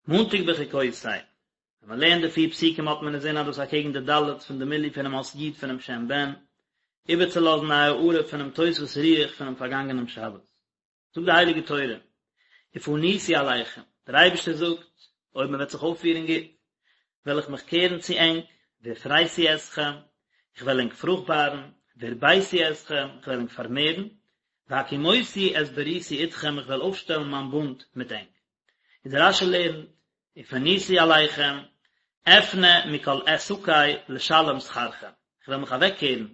מאנטאג בחוקותי, ווען מען לערנט די פיר פסוקים האט מען אינזין אז דאס אקעגן די ד' פון די מילוי פונעם אות י' פונעם שם בן, איבערצולאזן א הארה פונעם תוספות רוח פונעם פארגאנגענעם שבת. זאגט די הייליגע תורה, ופניתי אליכם, דער אייבערשטער זאגט, אויב מען וועט זיך אויפפירן גוט, וועל איך מיך קערן צו ענק, והפריתי אתכם, איך וועל ענק פרוכטבארן, והרביתי אתכם, איך וועל ענק פארמערן, והקימותי את בריתי אתכם, איך וועל אויפשטעלן מיין בונד מיט ענק. איז דער רש"י לערנט, ופניתי אליכם, אפנה מכל עסקי לשלם שכרכם, איך וועל מיך אוועקקערן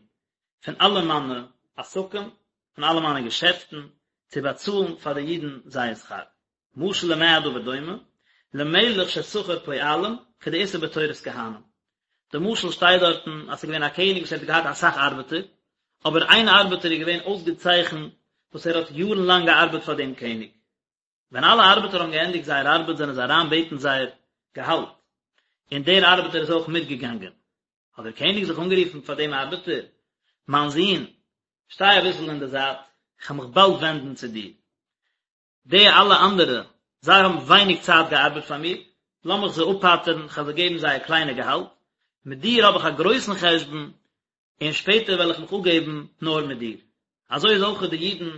פון אלע מיינע עסקים, פון אלע מיינע געשעפטן, צו באצאלן פאר די אידן זייער שכר. משל למה הדבר דומה? למלך ששכר פועלים, כדאיתא בתורת כהנים. די משל שטייט דארטן אז ס'איז געווען א קעניג וואס ער האט געהאט אסאך ארבעטער, אבער איין ארבעטער איז געווען אויסגעצייכנט וואס ער האט יארן לאנג געארבעט פאר דעם קעניג. ווען אלע ארבעטער האבן געענדיגט זייער ארבעט זענען זיי אריין בעטן זייער געהאלט, און דער ארבעטער איז אויך מיטגעגאנגען. האט דער קעניג זיך אנגערופן פאר דעם ארבעטער, מיין זון, שטיי אביסל אין די זייט, איך וועל מיך באלד ווענדן צו דיר. די אלע אנדערע, זיי האבן ווייניג צייט געארבעט פאר מיר, לאמיך זיי אפפטר'ן, איך וועל זיי געבן זייער קליינע געהאלט, מיט דיר האב איך א גרויסן חשבון, און שפעטער וועל איך מיך אפגעבן נאר מיט דיר. אזוי איז אויך די אידן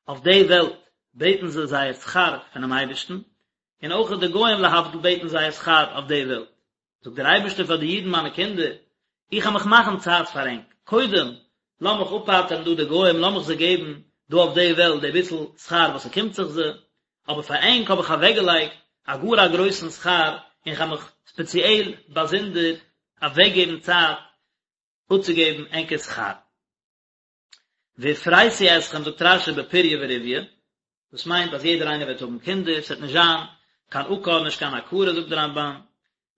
אויף די וועלט בעטן זיי זייער שכר פונעם אייבערשטן, און אויך די גוים להבדיל בעטן זייער שכר אויף די וועלט. זאגט דער אייבערשטער פאר די אידן מיינע קינדער, איך וועל מיך מאכן צייט פאר ענק, קודם לאמיך אפפטר'ן דא די גוים, לאמיך זיי געבן דא אויף די וועלט די ביסל שכר וואס ס'קומט זיך זיי, אבער פאר ענק האב איך אוועקגעלייגט א גאר א גרויסן שכר, און כ'וועל מיך ספעציעל באזונדער אוועקגעבן צייט אפצוגעבן ענקער שכר. והפריתי אתכם זאגט רש"י בפריה ורביה, דאס מיינט אז יעדער איינער וועט האבן קינדער, ס'וועט נישט זיין קיין עקר נישט קיין עקרה זאגט דער רמב"ן,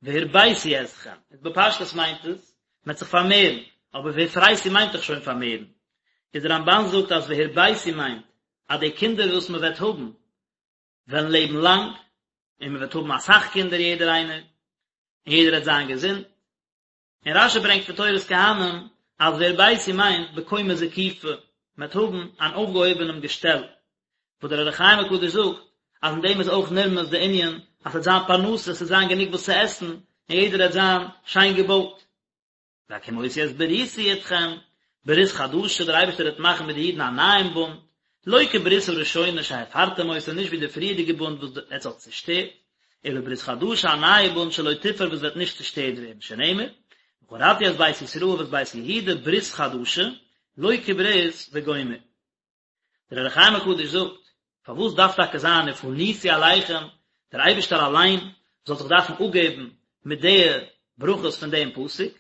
והרביתי אתכם, איז בפשטות מיינט עס, מ'וועט זיך פארמערן, אבער והפריתי מיינט דאך שוין פארמערן, איז דער רמב"ן זאגט אז והרביתי מיינט אז די קינדער וואס מ'וועט האבן וועלן לעבן לאנג, און מ'וועט האבן אסאך קינדער יעדער איינער, און יעדער וועט זיין געזונט, און רש"י ברענגט פון תורת כהנים אז והרביתי מיינט בקומה זקופה, מען וועט האבן אן אויפגעהויבענעם געשטעל, וואס דער אור החיים הקדוש זאגט אז אין דעם איז אויך נרמז די ענין אז ס'וועט זיין פרנסה, ס'וועט זיין גענוג וואס צו עסן, און יעדער וועט זיין שיין געבויט. והקימותי את בריתי אתכם, ברית חדשה, דער אייבערשטער וועט מאכן מיט די אידן א נייעם בונד, לא כברית הראשונה שהפרתם אותה, נישט ווי די פריערדיגע בונד וואס עטס האט צעשטערט, אלא ברית חדשה א נייע בונד שלא תופר וואס וועט נישט צעשטערט ווערן, שנאמר, וכרתי את בית ישראל ואת בית יהודה ברית חדשה, לא כברית וגומר. דער אור החיים הקדוש זאגט, פארוואס דארף טאקע זיין ופניתי אליכם, דער אייבערשטער אליין זאל זיך דארפן אפגעבן מיט די ברכות פון דעם פסוק,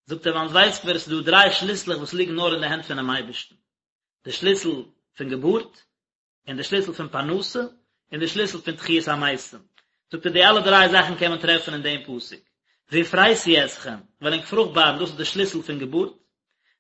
זאגט ער ווייל אונז ווייסט מיר עס איז דא דריי שליסלעך וואס ליגן נאר אין די הענט פונעם אייבערשטן, די שליסל פון געבורט, און די שליסל פון פרנסה, און די שליסל פון תחיית המתים. זאגט ער די אלע דריי זאכן קען מען טרעפן אין דעם פסוק. והפריתי אתכם, וועל ענק פרוכטבארן, דאס איז די שליסל פון געבורט.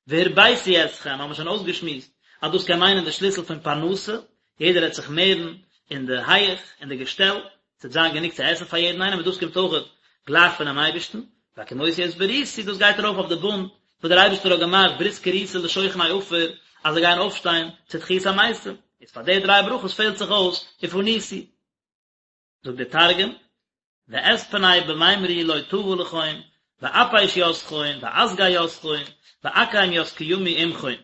והרביתי אתכם, האבן מיר שוין אויסגעשמועסט אז דאס קען מיינען די שליסל פון פרנסה, יעדער וועט זיך מערן אין די הייעך, אין די געשטעל, ס'וועט זיין גענוג צו עסן פאר יעדן איינעם און דאס קומט אויכעט גלייך פונעם אייבערשטן, והקימותי את בריתי, דאס גייט ארויף אויף די בונד וואס דער אייבערשטער האט געמאכט ברית כרותה לשוכני עפר אז זיי גייען אויפשטיין צו תחיית המתים, איז פאר די דריי ברכות פעלט זיך אויס ופניתי. זאגט דער תרגום, ואתפני במימרי לא טבא לכון, ואפיש יתכון, ואסגי יתכון, ואקים ית קימי עמכון.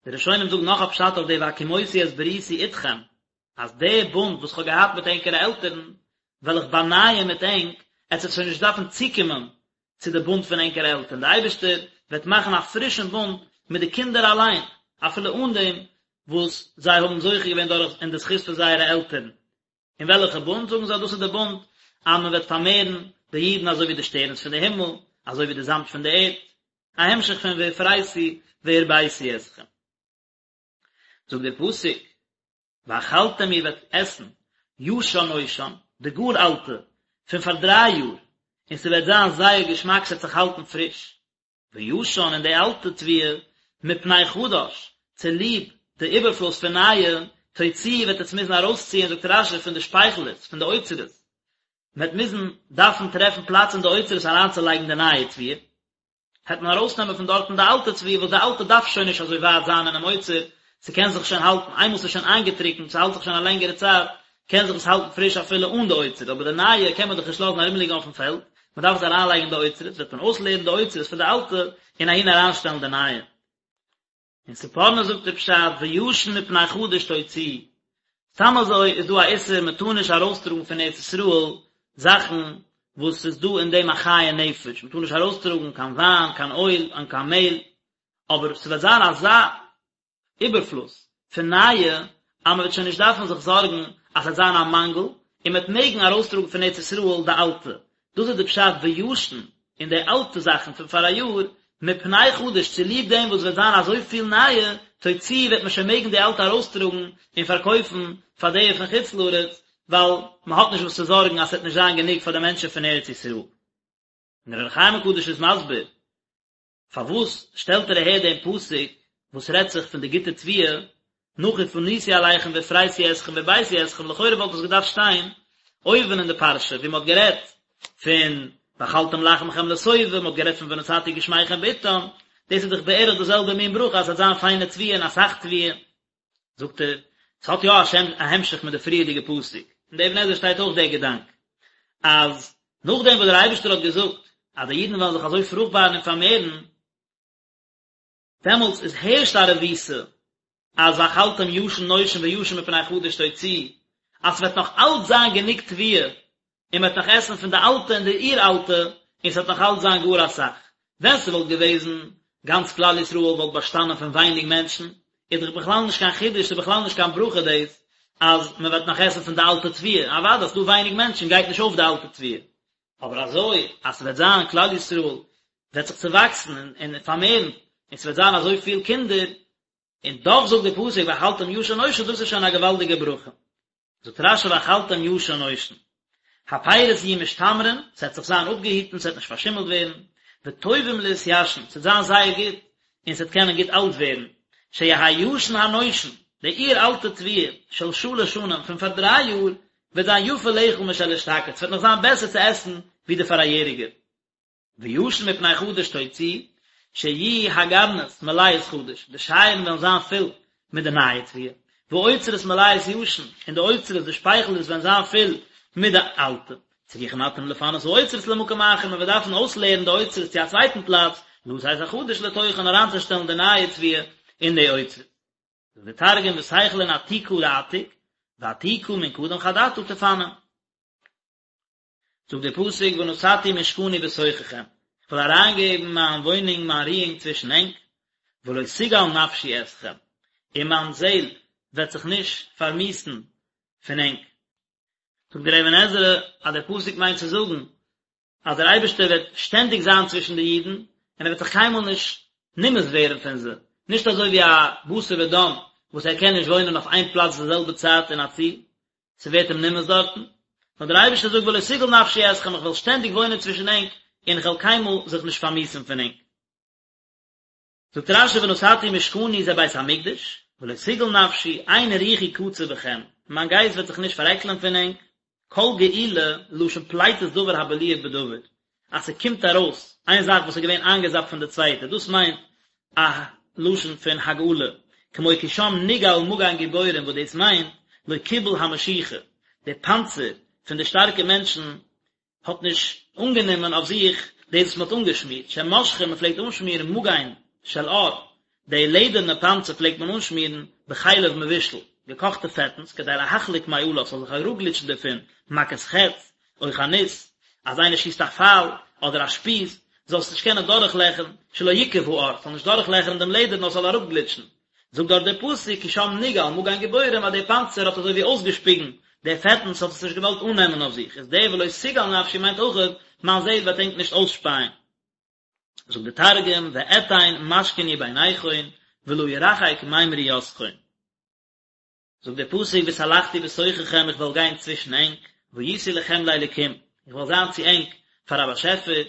די ראשונים זאגן נאך א פשט אויף די והקימותי את בריתי אתכם, אז די בונד וואס כ'האב געהאט מיט ענקערע עלטערן, וועל איך באנייען מיט ענק, עטס וועט שוין נישט דארפן צוקומען צו די בונד פון ענקערע עלטערן, די אייבערשטער וועט מאכן א פרישן בונד מיט די קינדער אליין, אפילו אן דעם וואס זיי האבן זוכה געווען דורך אין די זכות פון זייערע עלטערן. און וועלכע בונד? זאגן זיי דאס איז די בונד אז מען וועט פארמערן די אידן אזוי ווי די שטערנס פון די הימל, אזוי ווי די זאמד פון די ערד, א המשך פון והפריתי והרביתי אתכם. זאגט דער פסוק, ואכלתם איר וועט עסן ישן נושן, די גאר אלטע, פון פאר דריי יאר, און ס'וועט זיין זייער געשמאק, ס'וועט זיך האלטן פריש. וישן און די אלטע תבואה, מפני חדש, צוליב די איבערפלוס פון נייע, תוציאו וועט עטס מוזן ארויסציען, זאגט רש"י, פון די שפייכלערס, פון די אוצרות, מען וועט מוזן דארפן טרעפן פלאץ אין די אוצרות אריינצולייגן די נייע תבואה, העט מען ארויסנעמען פון דארטן די אלטע תבואה, וואס די אלטע דארף שוין נישט אזוי ווייט זיין אינעם אוצר, ס'קען זיך שוין האלטן, איינמאל ס'איז שוין איינגעטריקנט, ס'האלט זיך שוין א לענגערע צייט, קען זיך עס האלטן פריש אפילו אן די אוצר, אבער די נייע קען מען דאך נישט לאזן ארומליגן אויפן פעלד, מען דארף עס אריינלייגן אין די אוצרות, וועט מען אויסלערן די אוצרות פון די אלטע און אהין אריינשטעלן די נייע. אין ספורנו זאגט ער פשט וישן מפני חדש תוציאו, סתם אזוי איז דא א איסור מען טאר נישט ארויסטראגן פון ארץ ישראל זאכן וואס ס'איז דא אין דעם א חיי נפש, מען טאר נישט ארויסטראגן קיין וויין, קיין אויל, און קיין מעהל, אבער ס'וועט זיין אזא איבערפלוס פון נייע אז מען וועט שוין נישט דארפן זיך זארגן אז ס'וועט זיין א מאנגל, און מען וועט מעגן ארויסטראגן פון ארץ ישראל די אלטע, דאס איז די פשט וישן און די אלטע זאכן פון פאראיאר, מפני חדש צוליב דעם וואס וועט זיין אזויפיל נייע, תוציאו וועט מען שוין מעגן די אלטע ארויסטראגן און פארקויפן פאר די פון חוץ לארץ, ווייל מען האט נישט וואס צו זארגן אז ס'וועט נישט זיין גענוג פאר די מענטשן פון ארץ ישראל. און דער אור החיים הקדוש איז מסביר פארוואס שטעלט ער אהער דעם פסוק וואס רעדט זיך פון די גוטע תבואה, נאך ופניתי אליכם והפריתי אתכם והרביתי אתכם, לכאורה וואלט עס געדארפט שטיין אויבן אין די פרשה ווי מען האט גערעדט פון ואכלתם לחמכם לשובע, מען האט גערעדט פון ונתתי גשמיכם בעתם, דאס איז דאך בערך די זעלבע מין ברכה אז עס וועט זיין פיינע תבואה און אסאך תבואה. זאגט ער, עס האט יא א המשך מיט די פריערדיגע פסוק, אין די אבן עזרא שטייט אויך דער געדאנק, אז נאכדעם וואס דער אייבערשטער האט געזאגט אז די אידן וועלן זיך אזוי פרוכטבארן און פארמערן, דעמאלטס איז הערשט א רבותא אז ואכלתם ישן נושן וישן מפני חדש תוציאו, אז ס'וועט נאך אלץ זיין גענוג תבואה און מ'וועט נאך עסן פון די אלטע און די אור אלטע, און ס'וועט נאך אלץ זיין גאר אסאך. ווען ס'וואלט געוועזן גאנץ כלל ישראל וואלט באשטאנען פון ווייניג מענטשן, איז דאך בכלל נישט קיין חידוש, ס'איז בכלל נישט קיין ברכה דאס אז מ'וועט נאך עסן פון די אלטע תבואה, אוודאי אז ס'דא ווייניג מענטשן גייט נישט אויף די אלטע תבואה. אבער אזוי אז ס'וועט זיין כלל ישראל וועט זיך צעוואקסן און פארמערן, און ס'וועט זיין אזוי פיל קינדער, און דאך זאגט דער פסוק ואכלתם ישן נושן דאס איז שוין א געוואלדיגע ברכה. זאגט רש"י ואכלתם ישן נושן, הפירות יהיו משתמרין, ס'וועט זיך זיין אפגעהיטן, ס'וועט נישט פארשימלט ווערן, וטובים להתיישן, ס'וועט זיין זייער גוט, און ס'וועט קענען גוט אלט ווערן, שיהא ישן הנושן, די אור אלטע תבואה, של שלש שנים, פון פאר דריי יאר, וועט זיין יפה לאכול משל אשתקד, ס'וועט נאך זיין בעסער צו עסן ווי די פאראיעריגע. וישן מפני חדש תוציאו, שיהיו הגרנות מלאות חדש, די שייערן וועלן זיין פול מיט די נייע תבואה, והאוצרות מלאות ישן, און די אוצרות, די שפייכלערס וועלן זיין פול מיט די אלטע. צריכים אתם לפנות האוצרות למקום אחר, מען וועט דארפן אויסלערן די אוצרות צו א צווייטן פלאץ, לתת החדש לתוכן אריינצושטעלן די נייע תבואה אין די אוצרות. זאגט דער תרגום ותיכלון עתיקא לעתיק, ועתיקא מן קדם חדתא תפנון. זאגט דער פסוק ונתתי משכני בתוככם, איך וועל אריינגעבן מיין וואוינונג מיין רואונג צווישן ענק, ולא תגעל נפשי אתכם, און מיין זעל וועט זיך נישט פארמיאוסן פון ענק. זאגט דער אבן עזרא אז דער פסוק מיינט צו זאגן אז דער אייבערשטער וועט שטענדיג זיין צווישן די אידן, און ער וועט זיך קיינמאל נישט נמאס ווערן פון זיי, נישט אזוי ווי א בשר ודם וואס ער קען נישט וואוינען אויף איין פלאץ די זעלבע צייט אין א צי, ס'ווערט אים נמאס דארטן, נאר דער אייבערשטער זאגט ולא תגעל נפשי אתכם איך וועל שטענדיג וואוינען צווישן ענק און איך וועל קיינמאל זיך נישט פארמיאוסן פון ענק. זאגט רש"י ונתתי משכני זה בית המקדש, ולא תגעל נפשי, אין רוחי קצה בכם, מיין גייסט וועט זיך נישט פארעקלען פון ענק, כל געילה, לשון פליטת דבר הבלוע בדבר, אז ס'קומט ארויס איין זאך וואס איז געווען איינגעזאפט פון די צווייטע, דאס מיינט א לשון פון הגעלה, כמו כי שם נגעל מגן גיבורים וואס דאס מיינט לא קיבל המשיחה, די פאנצער פון די שטארקע מענטשן האט נישט אנגענומען אויף זיך דאס וואס מ'האט אנגעשמירט, שמשחין מ'פלעגט אנשמירן מגן של עור, די לעדערנע פאנצער פלעגט מען אנשמירן בחלב מבושל, געקאכטע פעטנס, כדי להחליק מעליו, ס'זאל זיך אראפגליטשן דערפון, מכת חץ, או חנית, אז איינער שיסט א פייל, אדער א שפיז, זאל עס נישט קענען דורכלעכערן, שלא יקב העור, ס'זאל נישט דורכלעכערן דעם לעדער נאר ס'זאל אראפגליטשן. זאגט דארט דער פסוק כי שם נגעל מגן גיבורים אז דער פאנצער האט אזוי ווי אויסגעשפיגן די פעטנס האט עס נישט געוואלט אננעמען אויף זיך, איז דער ולא תגעל נפשי מיינט אויכעט מיין זעהל וועט ענק נישט אויסשפייען. זאגט דער תרגום ואתין משכני ביניכון ולא ירחק ממריותכון. זאגט דער פסוק והתהלכתי בתוככם איך וועל גיין צווישן ענק, והייתי לכם לאלקים, איך וועל זיין צו ענק פאר א באשעפער,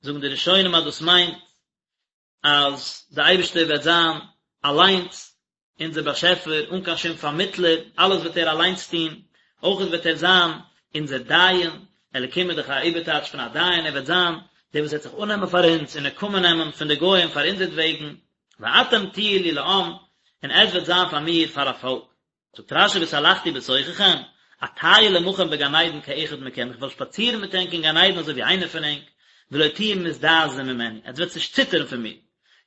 זאגן די ראשונים אז דאס מיינט אז דער אייבערשטער וועט זיין אליינס אונזער באשעפער אן קיין שום פארמיטלער, אלעס וועט ער אליינס טון, אויך וועט ער זיין אונזער דיין, אלקים איז דאך א איבערטייטש פון א דיין, ער וועט זיין דער וואס וועט זיך אננעמען פאר אונז און נקמה נעמען פון די גוים פאר אונזערטוועגן, ואתם תהיו לי לעם, און עטס וועט זיין פאר מיר פאר א פאלק. זאגט רש"י והתהלכתי בתוככם, אטייל עמכם בגן עדן כאחד מכם, איך וועל שפאצירן מיט ענק אין גן עדן אזוי ווי איינער פון ענק, ולא תהיו מזדעזעים ממני, עטס וועטס נישט ציטערן פון מיר,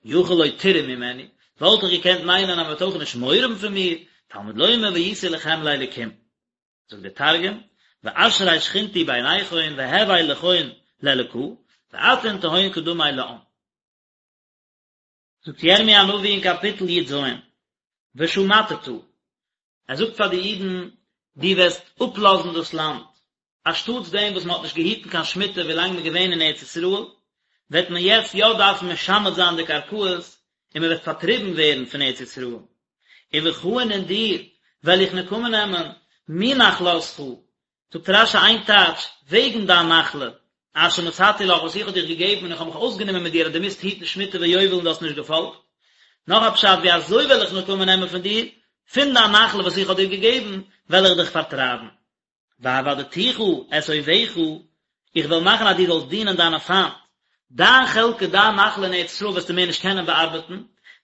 יכול לא תיראו ממני, וואלט איך געקענט מיינען אז מען וועט אויך נישט מורא האבן פון מיר, תלמוד לומר והייתי לכם לאלקים. זאגט דער תרגום, ואשרי שכינתי ביניכון והוי לכון לאלקא, ואתון תהון קדמי לעם. זאגט ירמי' הנביא אין קאפיטל י ז, ושמטת, ער זאגט פאר די אידן, דו וועסט אפלאזן דאס לאנד, אנשטאטס דעם וואס מען האט נישט געהיטן קיין שמיטה ווילאנג מען איז געווען אין ארץ ישראל, וועט מען יעצט יא דארפן משמט זיין די קרקעות און מען וועט פארטריבן ווערן פון ארץ ישראל. ובך און אין דיר וועל איך נקמה נעמען, מנחלתך, זאגט רשי איין טייטש, וועגן דיין נחלה, אשר נתתי לך וואס איך האב דיך געגעבן און איך האב מיך אויסגענומען מיט דיר אז דו מוזט היטן שמיטה ויובל און דו האסט נישט געפאלגט. נאך א פשט, ווי אזוי וועל איך נקמה נעמען פון דיר, פון דיין נחלה וואס איך האב דיר געגעבן, וועל איך דיך פארטרייבן. ועבדתיך את אויביך, איך וועל מאכן אז דו זאלסט דינען דיינע פיינט, דיין חלקה, דיין נחלה אין ארץ ישראל וועסטו מער נישט קענען באארבעטן,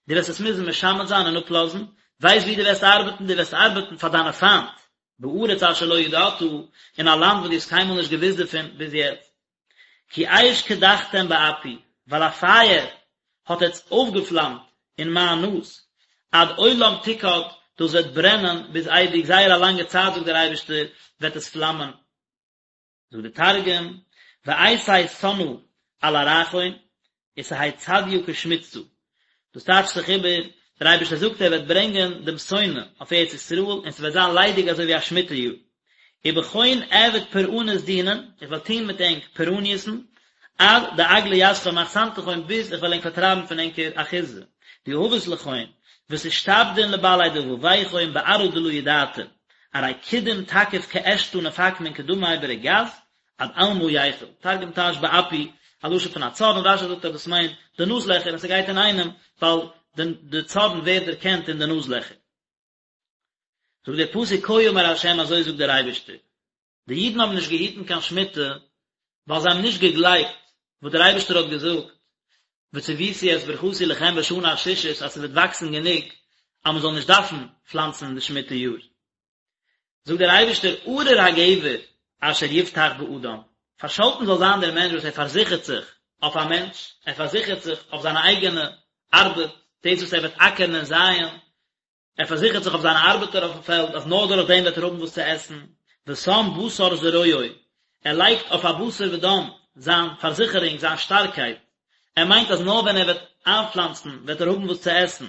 דו וועסט עס מוזן משמט זיין און אפלאזן, ווייסט וואו דו וועסט ארבעטן, דו וועסט ארבעטן פאר דיינע פיינט, בארץ אשר לא ידעת, אין א לאנד וואס דו האסט קיינמאל נישט געוואוסט דערפון ביז יעצט. כי אש קדחתם באפי, ווייל א פייער האט עטץ אויפגעפלאמט אין מיין נאז, עד עולם תוקד, דאס וועט ברענען ביז אייביג, זייער א לאנגע צייט זאגט דער אייבערשטער וועט עס פלאמען. זאגט דער תרגום, ואייתי סנא על ארעכון, ותהי צדיא כשמיטתא, דאס טייטשט זיך איבער, דער אייבערשטער זאגט ער וועט ברענגען דעם שונא אויף ארץ ישראל און ס'וועט זיין ליידיג אזוי ווי א שמיטה יאר, ובכון אעביד פורענות דינין, איך וועל טון מיט ענק פורעניות'ן, עד דאגלא יתכון מאחסנתכון ביז איך וועל ענק פארטרייבן פון ענקער אחיזה, דיהבת לכון, ותשתעבדון לבעלי דבביכון בארעא דלא ידעתון, ארי קדם תקיף כעשתא נפק מן קדמאי ברגז, עד עלמא ייחיל, תרגום טייטשט באפי, א לשון פון א צארן, רשי זאגט אז דאס מיינט די נאז לעכער און ס'גייט אינאיינעם ווייל די צארן ווערט דערקענט אין די נאז לעכער. זאגט דער פסוק כה אמר ה' אזוי זאגט דער אייבערשטער, די אידן האבן נישט געהיטן קיין שמיטה ווייל זיי האבן נישט געגלייבט וואס דער אייבערשטער האט געזאגט, וצויתי את ברכתי לכם בשנה השישית אז ס'וועט וואקסן גענוג אז מ'זאל נישט דארפן פלאנצן אין די שמיטה יאר. זאגט דער אייבערשטער ארור הגבר אשר יבטח באדם, פארשאלטן זאל זיין דער מענטש וואס ער פארזיכערט זיך אויף א מענטש, ער פארזיכערט זיך אויף זיינע אייגענע ארבעט, דאס וואס ער וועט אקערן און זייען, ער פארזיכערט זיך אויף זיינע ארבעטער אויפן פעלד אז נאר דורך דעם וועט ער האבן וואס צו עסן, ושם בשר זרועו, ער לייגט אויף א בשר ודם זיין פארזיכערונג, זיין שטארקייט, ער מיינט אז נאר ווען ער וועט איינפלאנצן וועט ער האבן וואס צו עסן,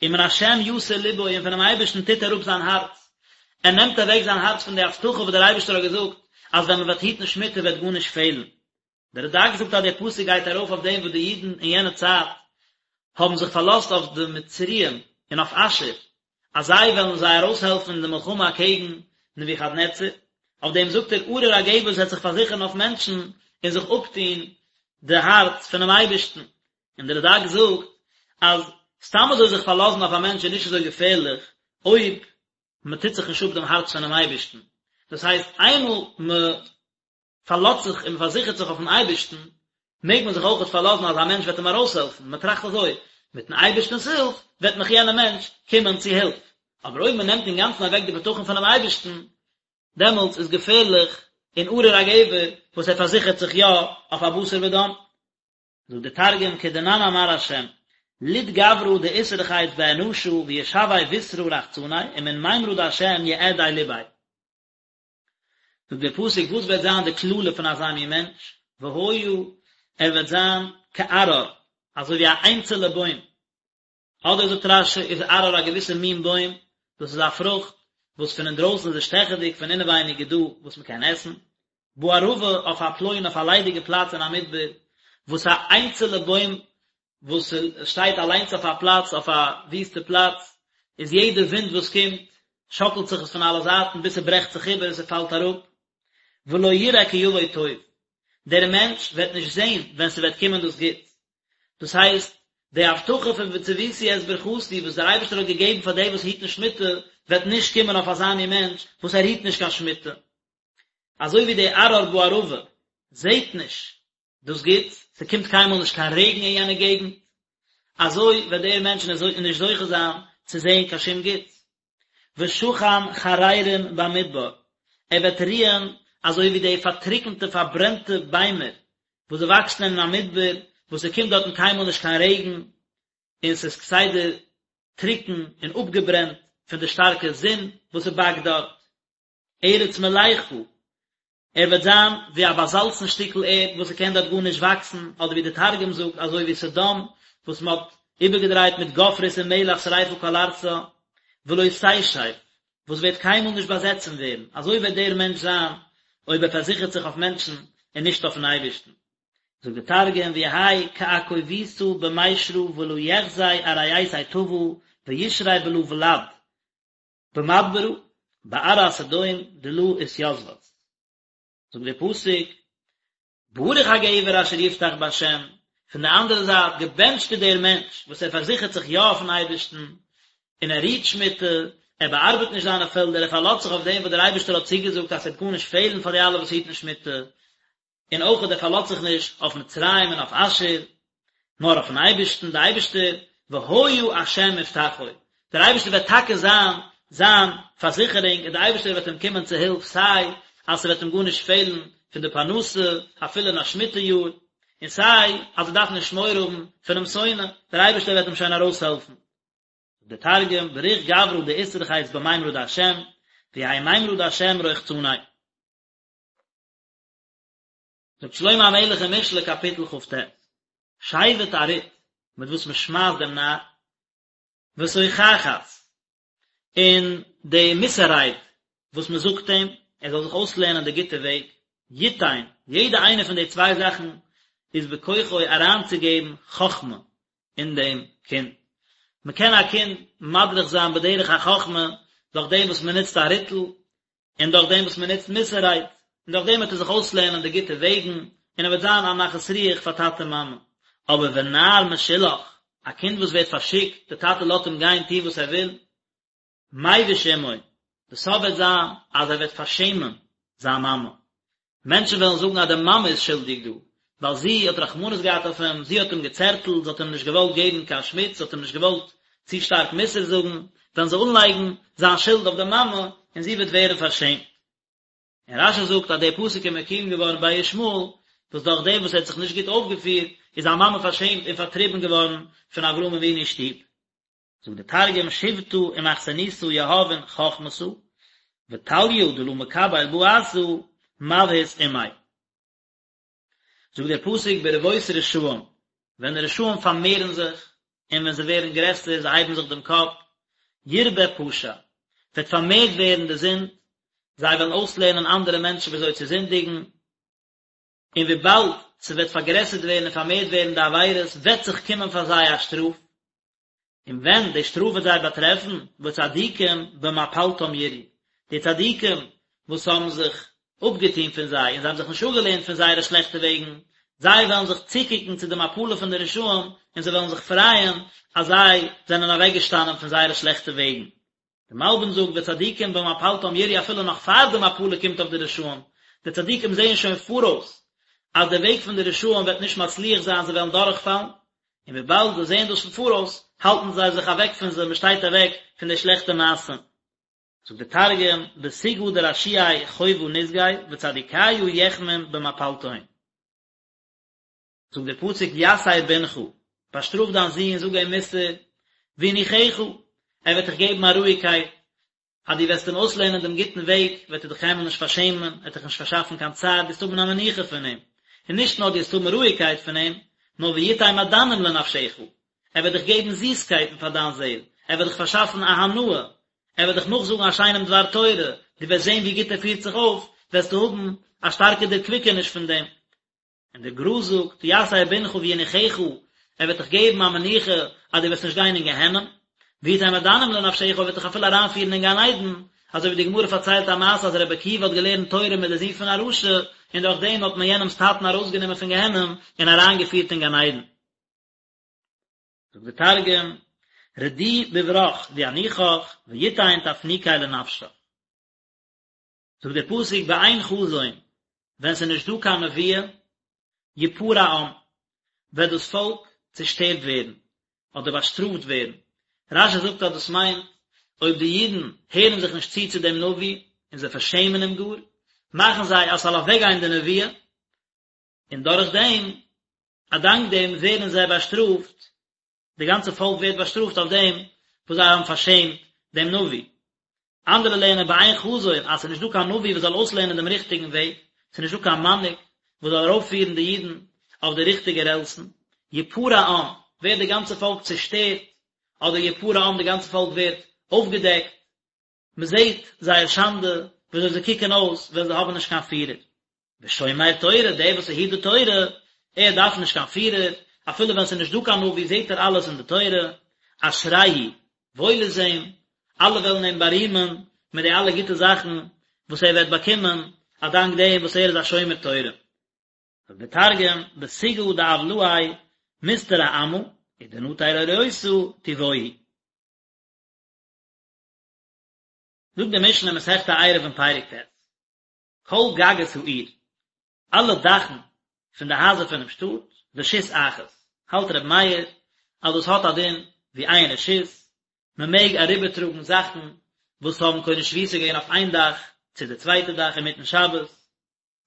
ומן השם יסור לבו און פונעם אייבערשטן טוט ער אפ זיין הארץ, ער נעמט אוועק זיין הארץ פון די הבטחה וואס דער אייבערשטער האט געזאגט אז ווען מען וועט היטן שמיטה וועט גארנישט פעלן. דער רד"ק זאגט אז דער פסוק גייט ארויף אויף דעם וואס די אידן אין יענע צייט האבן זיך פארלאזט אויף די מצריים און אויף אשור אז זיי וועלן זיי ארויסהעלפן אין די מלחמה אקעגן נבוכדנצר, אויף דעם זאגט ער ארור הגבר וואס וועט זיך פארזיכערן אויף מענטשן און זיך אפטון די הארץ פונעם אייבערשטן, און דער רד"ק זאגט אז סתם אזוי זיך פארלאזן אויף א מענטש איז נישט אזוי געפערליך אויב מען טוט זיך נישט אפ דעם הארץ פונעם אייבערשטן, דאס הייסט איינמאל מען פארלאזט זיך און מען פארזיכערט זיך אויפן אייבערשטן, מעג מען זיך אויכעט פארלאזן אז א מענטש וועט אים ארויסהעלפן, מען טראכט אזוי, מיטן אייבערשטנ'ס הילף וועט מיך יענער מענטש קומען צו הילף, אבער אויב מען נעמט אינגאנצן אוועק די בטחון פונעם אייבערשטן, דעמאלטס איז געפערליך און ארור הגבר וואס ער פארזיכערט זיך יא אויף א בשר ודם. זאגט דער תרגום כדנן אמר השם, לוט גברא דאתרחיץ באנשא וישוי בשרא רחצניה ומן מימרא דהשם יעדי לביה. זאגט דער פסוק וואס וועט זיין די קללה פון אזא מין מענטש, והיה ער וועט זיין כערער, אזוי ווי א איינצעלע בוים, אדער זאגט רש"י איז ערער א געוויסע מין בוים, דאס איז א פרוכט וואס פון אינדרויסן איז עס שטעכעדיג, פון אינעווייניג איז דא וואס מען קען עסן, בערבה אויף א פלוין אויף א ליידיגע פלאץ אין א מדבר, וואס א איינצעלע בוים וואס שטייט אליינס אויף א פלאץ, אויף א וויסטע פלאץ, איז יעדע ווינט וואס קומט, שאקלט זיך עס פון אלע זייטן ביז ס'ברעכט זיך איבער און ס'פאלט אראפ. ולא יראה כי יבוא טוב, דער מענטש וועט נישט זען ווען ס'וועט קומען דאס גוטס. דאס הייסט, די הבטחה פון וצויתי את ברכתי וואס דער אייבערשטער האט געגעבן פאר די וואס היטן שמיטה, וועט נישט קומען אויף אזא מין מענטש וואס ער היט נישט קיין שמיטה. אזוי ווי די ערער בערבה זעט נישט דאס גוטס, ס'קומט קיינמאל נישט קיין רעגן אין יענע געגנט, אזוי וועט דער מענטש נישט זוכה זיין צו זען קיין שום גוטס. ושכן חררים במדבר, ער וועט רוען אזוי ווי די פארטריקנטע פארברענטע ביימער וואס זיי וואקסן אין א מדבר, וואס ס'קומט דארטן קיינמאל נישט קיין רעגן, און ס'איז כסדר טרוקן און אפגעברענט פון די שטארקע זון וואס ס'באקט דארט. ארץ מלחה, ער וועט זיין ווי א באזאלצן שטיקל ערד וואס ס'קען דארט גארנישט וואקסן, אדער ווי די תרגום זאגט אזוי ווי סדום וואס מ'האט איבערגעדרייט מיט גופרית און מלח שריפה כל ארצה, ולא תשב, וואס וועט קיינמאל נישט באזעצן ווערן, אזוי וועט דער מענטש זיין אויב ער פארזיכערט זיך אויף מענטשן און נישט אויפן אייבערשטן. זאגט די תרגום ויהי כעכוביתא במישרא ולא יחזי ארעיתיה טבא וישרי בלא ולד במדברא בארעא סדום דלא אתיתבת. זאגט דער פסוק, ברוך הגבר אשר יבטח בה', פון די אנדערע זייט, געבענטשט איז דער מענטש וואס ער פארזיכערט זיך יא אויפן אייבערשטן, און ער רוהט שמיטה, ער באארבעט נישט זיינע פעלדער, ער פארלאזט זיך אויף דעם וואס דער אייבערשטער האט צוגעזאגט אז ס'וועט גארנישט פעלן פאר די אלע וואס היטן שמיטה, און אויך ער פארלאזט זיך נישט אויף מצרים און אויף אשור, נאר אויפן אייבערשטן, דער אייבערשטער, והיה השם מבטחו, דער אייבערשטער וועט טאקע זיין זיין פארזיכערונג, און דער אייבערשטער וועט אים קומען צו הילף, סיי אז ס'וועט אים גארנישט פעלן פון די פרנסה, אפילו אין א שמיטה יאר, און סיי אז ער דארף נישט מורא האבן פונעם שונא, דער אייבערשטער וועט אים שוין ארויסהעלפן. דער תרגום, בריך גברא דאתרכיס במימרא דהשם, ויהי מימרא דהשם רוחצניה. זאגט שלמה המלך אין משלי קאפיטל כ"ט, שבט א רוט מיט וואס מען שמייסט דעם נאר, ותוכחת, און די מוסר רייד וואס מען זאגט אים, ער זאל זיך אויסלערנען די גוטע וועג, יתן, יעדע איינע פון די צוויי זאכן איז בכוחו אריינצוגעבן חכמה אין דעם קינד. מען קען א קינד מדריך זיין בדרך החכמה דורך דעם וואס מען נוצט א ריטל, און דורך דעם וואס מען נוצט מוסר רייד, און דורך דעם וועט ער זיך אויסלערנען די גוטע וועגן, און ער וועט זיין א נחת רוח פאר טאטע מאמע. אבער ונער משולח, א קינד וואס ווערט פארשיקט, די טאטע לאזט אים גיין טון וואס ער וויל, מביש אמו, די סוף וועט זיין אז ער וועט פארשעמען זיין מאמע, מענטשן וועלן זאגן אז די מאמע איז שולדיג דא, ווייל זי האט רחמנות געהאט אויף אים, זי האט אים געצערטלט, זי האט אים נישט געוואלט געבן קיין שמיץ, זי האט אים נישט געוואלט צו שטארק מוסר זאגן, וועלן זיי אנלייגן זיין שולד אויף די מאמע, און זי וועט ווערן פארשעמט. און רש"י זאגט אז דער פסוק איז מקוים געווארן ביי ישמעאל, וואס דורך דעם וואס ער האט זיך נישט גוט אויפגעפירט, איז זיין מאמע פארשעמט און פארטריבן געווארן פון אברהם אבינו'ס שטוב. זאגט דער תרגום שיבטא ומכסנותא יהבין חכמתא, וטליא דלא מקבל בעתא מבהית אמיה. זאגט דער פסוק ברבות רשעים, ווען די רשעים פארמערן זיך, און ווען זיי ווערן גרעסער, זיי הייבן זיך דעם קאפ, ירבה פשע, וועט פארמערט ווערן די זינד, זיי וועלן אויסלערנען אנדערע מענטשן ווי אזוי צו זינדיגן, און וויבאלד ס'וועט פארגרעסערט ווערן און פארמערט ווערן די עבירות, וועט זיך קומען פאר זיי א שטראף, און ווען די שטראף וועט זיי באטרעפן, וצדיקים במפלתם יראו, די צדיקים וואס האבן זיך אפגעטון פון זיי און זיי האבן זיך נישט אפגעלערנט פון זייערע שלעכטע וועגן, זיי וועלן זיך צוקוקן צו די מפלה פון די רשעים און זיי וועלן זיך פרייען אז זיי זענען אוועקגעשטאנען פון זייערע שלעכטע וועגן. די מלבי"ם זאגט וצדיקים במפלתם יראו אפילו נאך פאר די מפלה קומט אויף די רשעים, די צדיקים זעען שוין פאראויס אז די וועג פון די רשעים וועט נישט מצליח זיין זיי וועלן דורכפאלן, און וויבאלד זיי זעען דאס פון פאראויס האלטן זיי זיך אוועק פון זיי, מען שטייט אוועק פון די שלעכטע מעשים. זאגט די תרגום, בסוגעא דרשיעי חובא נסגי וצדיקיא יחמון במפלתהון. זאגט דער פסוק יסר בנך, באשטראף דיין זון, זאג אים מוסר, וינוחך, ער וועט דיך געבן א רואיגקייט, אז דו וועסט אים אויסלערנען דעם גוטן וועג, וועט ער דיך קיינמאל נישט פארשעמען, ער וועט דיך נישט פארשאפן קיין צער, דו וועסט האבן א מנוחה פון אים, און נישט נאר דו וועסט האבן רואיגקייט פון אים, נאר ויתן מעדנים לנפשך, ער וועט דיך געבן זיסקייטן פאר דיין זעל, ער וועט דיך פארשאפן א הנאה, ער וועט דיך נאכזאגן א שיינעם דבר תורה, דו וועסט זען ווי גוט ער פירט זיך אויף, וועסטו האבן א שטארקע דערקוויקעניש פון דעם. און דער גר"א זאגט, יסר בנך וינוחך, ער וועט דיך געבן א מנוחה אז דו וועסט נישט גיין אין גיהנום, ויתן מעדנים לנפשך, ער וועט דיך אפילו אריינפירן אין גן עדן, אזוי ווי די גמרא פארציילט א מעשה אז רבי עקיבא האט געלערנט תורה מיט די זון פון א רשע, און דורך דעם האט מען יענעמ'ס טאטן ארויסגענומען פון גיהנום און אריינגעפירט אין גן עדן. זאגט די תרגום, רדי בברך וינוחך, ויתן תפנוקי לנפשך. זאגט דער פסוק באין חזון, ווען ס'איז נישט דא קיין נבואה, יפרע עם, וועט דאס פאלק צעשטערט ווערן, אדער באשטראפט ווערן. רש"י זאגט אז דאס מיינט, אויב די אידן הערן זיך נישט צו צו דעם נביא, און זיי פארשעמען אים גאר, מאכן זיי אז ס'זאל אוועקגיין די נבואה, און דורך דעם, א דאנק דעם ווערן זיי באשטראפט, די גאנצע פאלק ווערט באשטראפט אויף דעם וואס זיי האבן פארשעמט דעם נביא. אנדערע לערנען באין חזון אז ס'איז נישט דא קיין נביא וואס זאל אויסלערנען דעם ריכטיגן וועג, ס'איז נישט דא קיין מנהיג וואס זאל ארויפפירן די אידן אויף די ריכטיגע רעלסן, יפרע עם, ווערט די גאנצע פאלק צעשטערט, אדער יפרע עם, די גאנצע פאלק ווערט אויפגעדעקט, מען זעט זייער שאנדע וויאזוי זיי קוקן אויס ווען זיי האבן נישט קיין פירער. ושומר תורה, דער וואס היט די תורה, ער דארף נישט קיין פירער, אפילו ווען ס'איז נישט דא קיין נביא זעט ער אלעס אין די תורה, אשריהו, וואויל איז אים, אלע וועלן אים בארימען מיט די אלע גוטע זאכן וואס ער וועט באקומען א דאנק דעם וואס ער איז א שומר תורה. זאגט דער תרגום, בסוגעא דעולאי מתטרא עמא, ודנטר אורייתא טובוהי. זאגט די משנה אין מסכת עירובין פרק ט', כל גגות העיר, אלע דאכן פון די הייזער פונעם שטאט, רשות אחת, האלט ר' מאיר אז דאס האט א דין ווי איין רשות, מען מעג אריבערטראגן זאכן וואס האבן קונה שביתה געווען אויף איין דאך צו די צווייטע דאך אינמיטן שבת,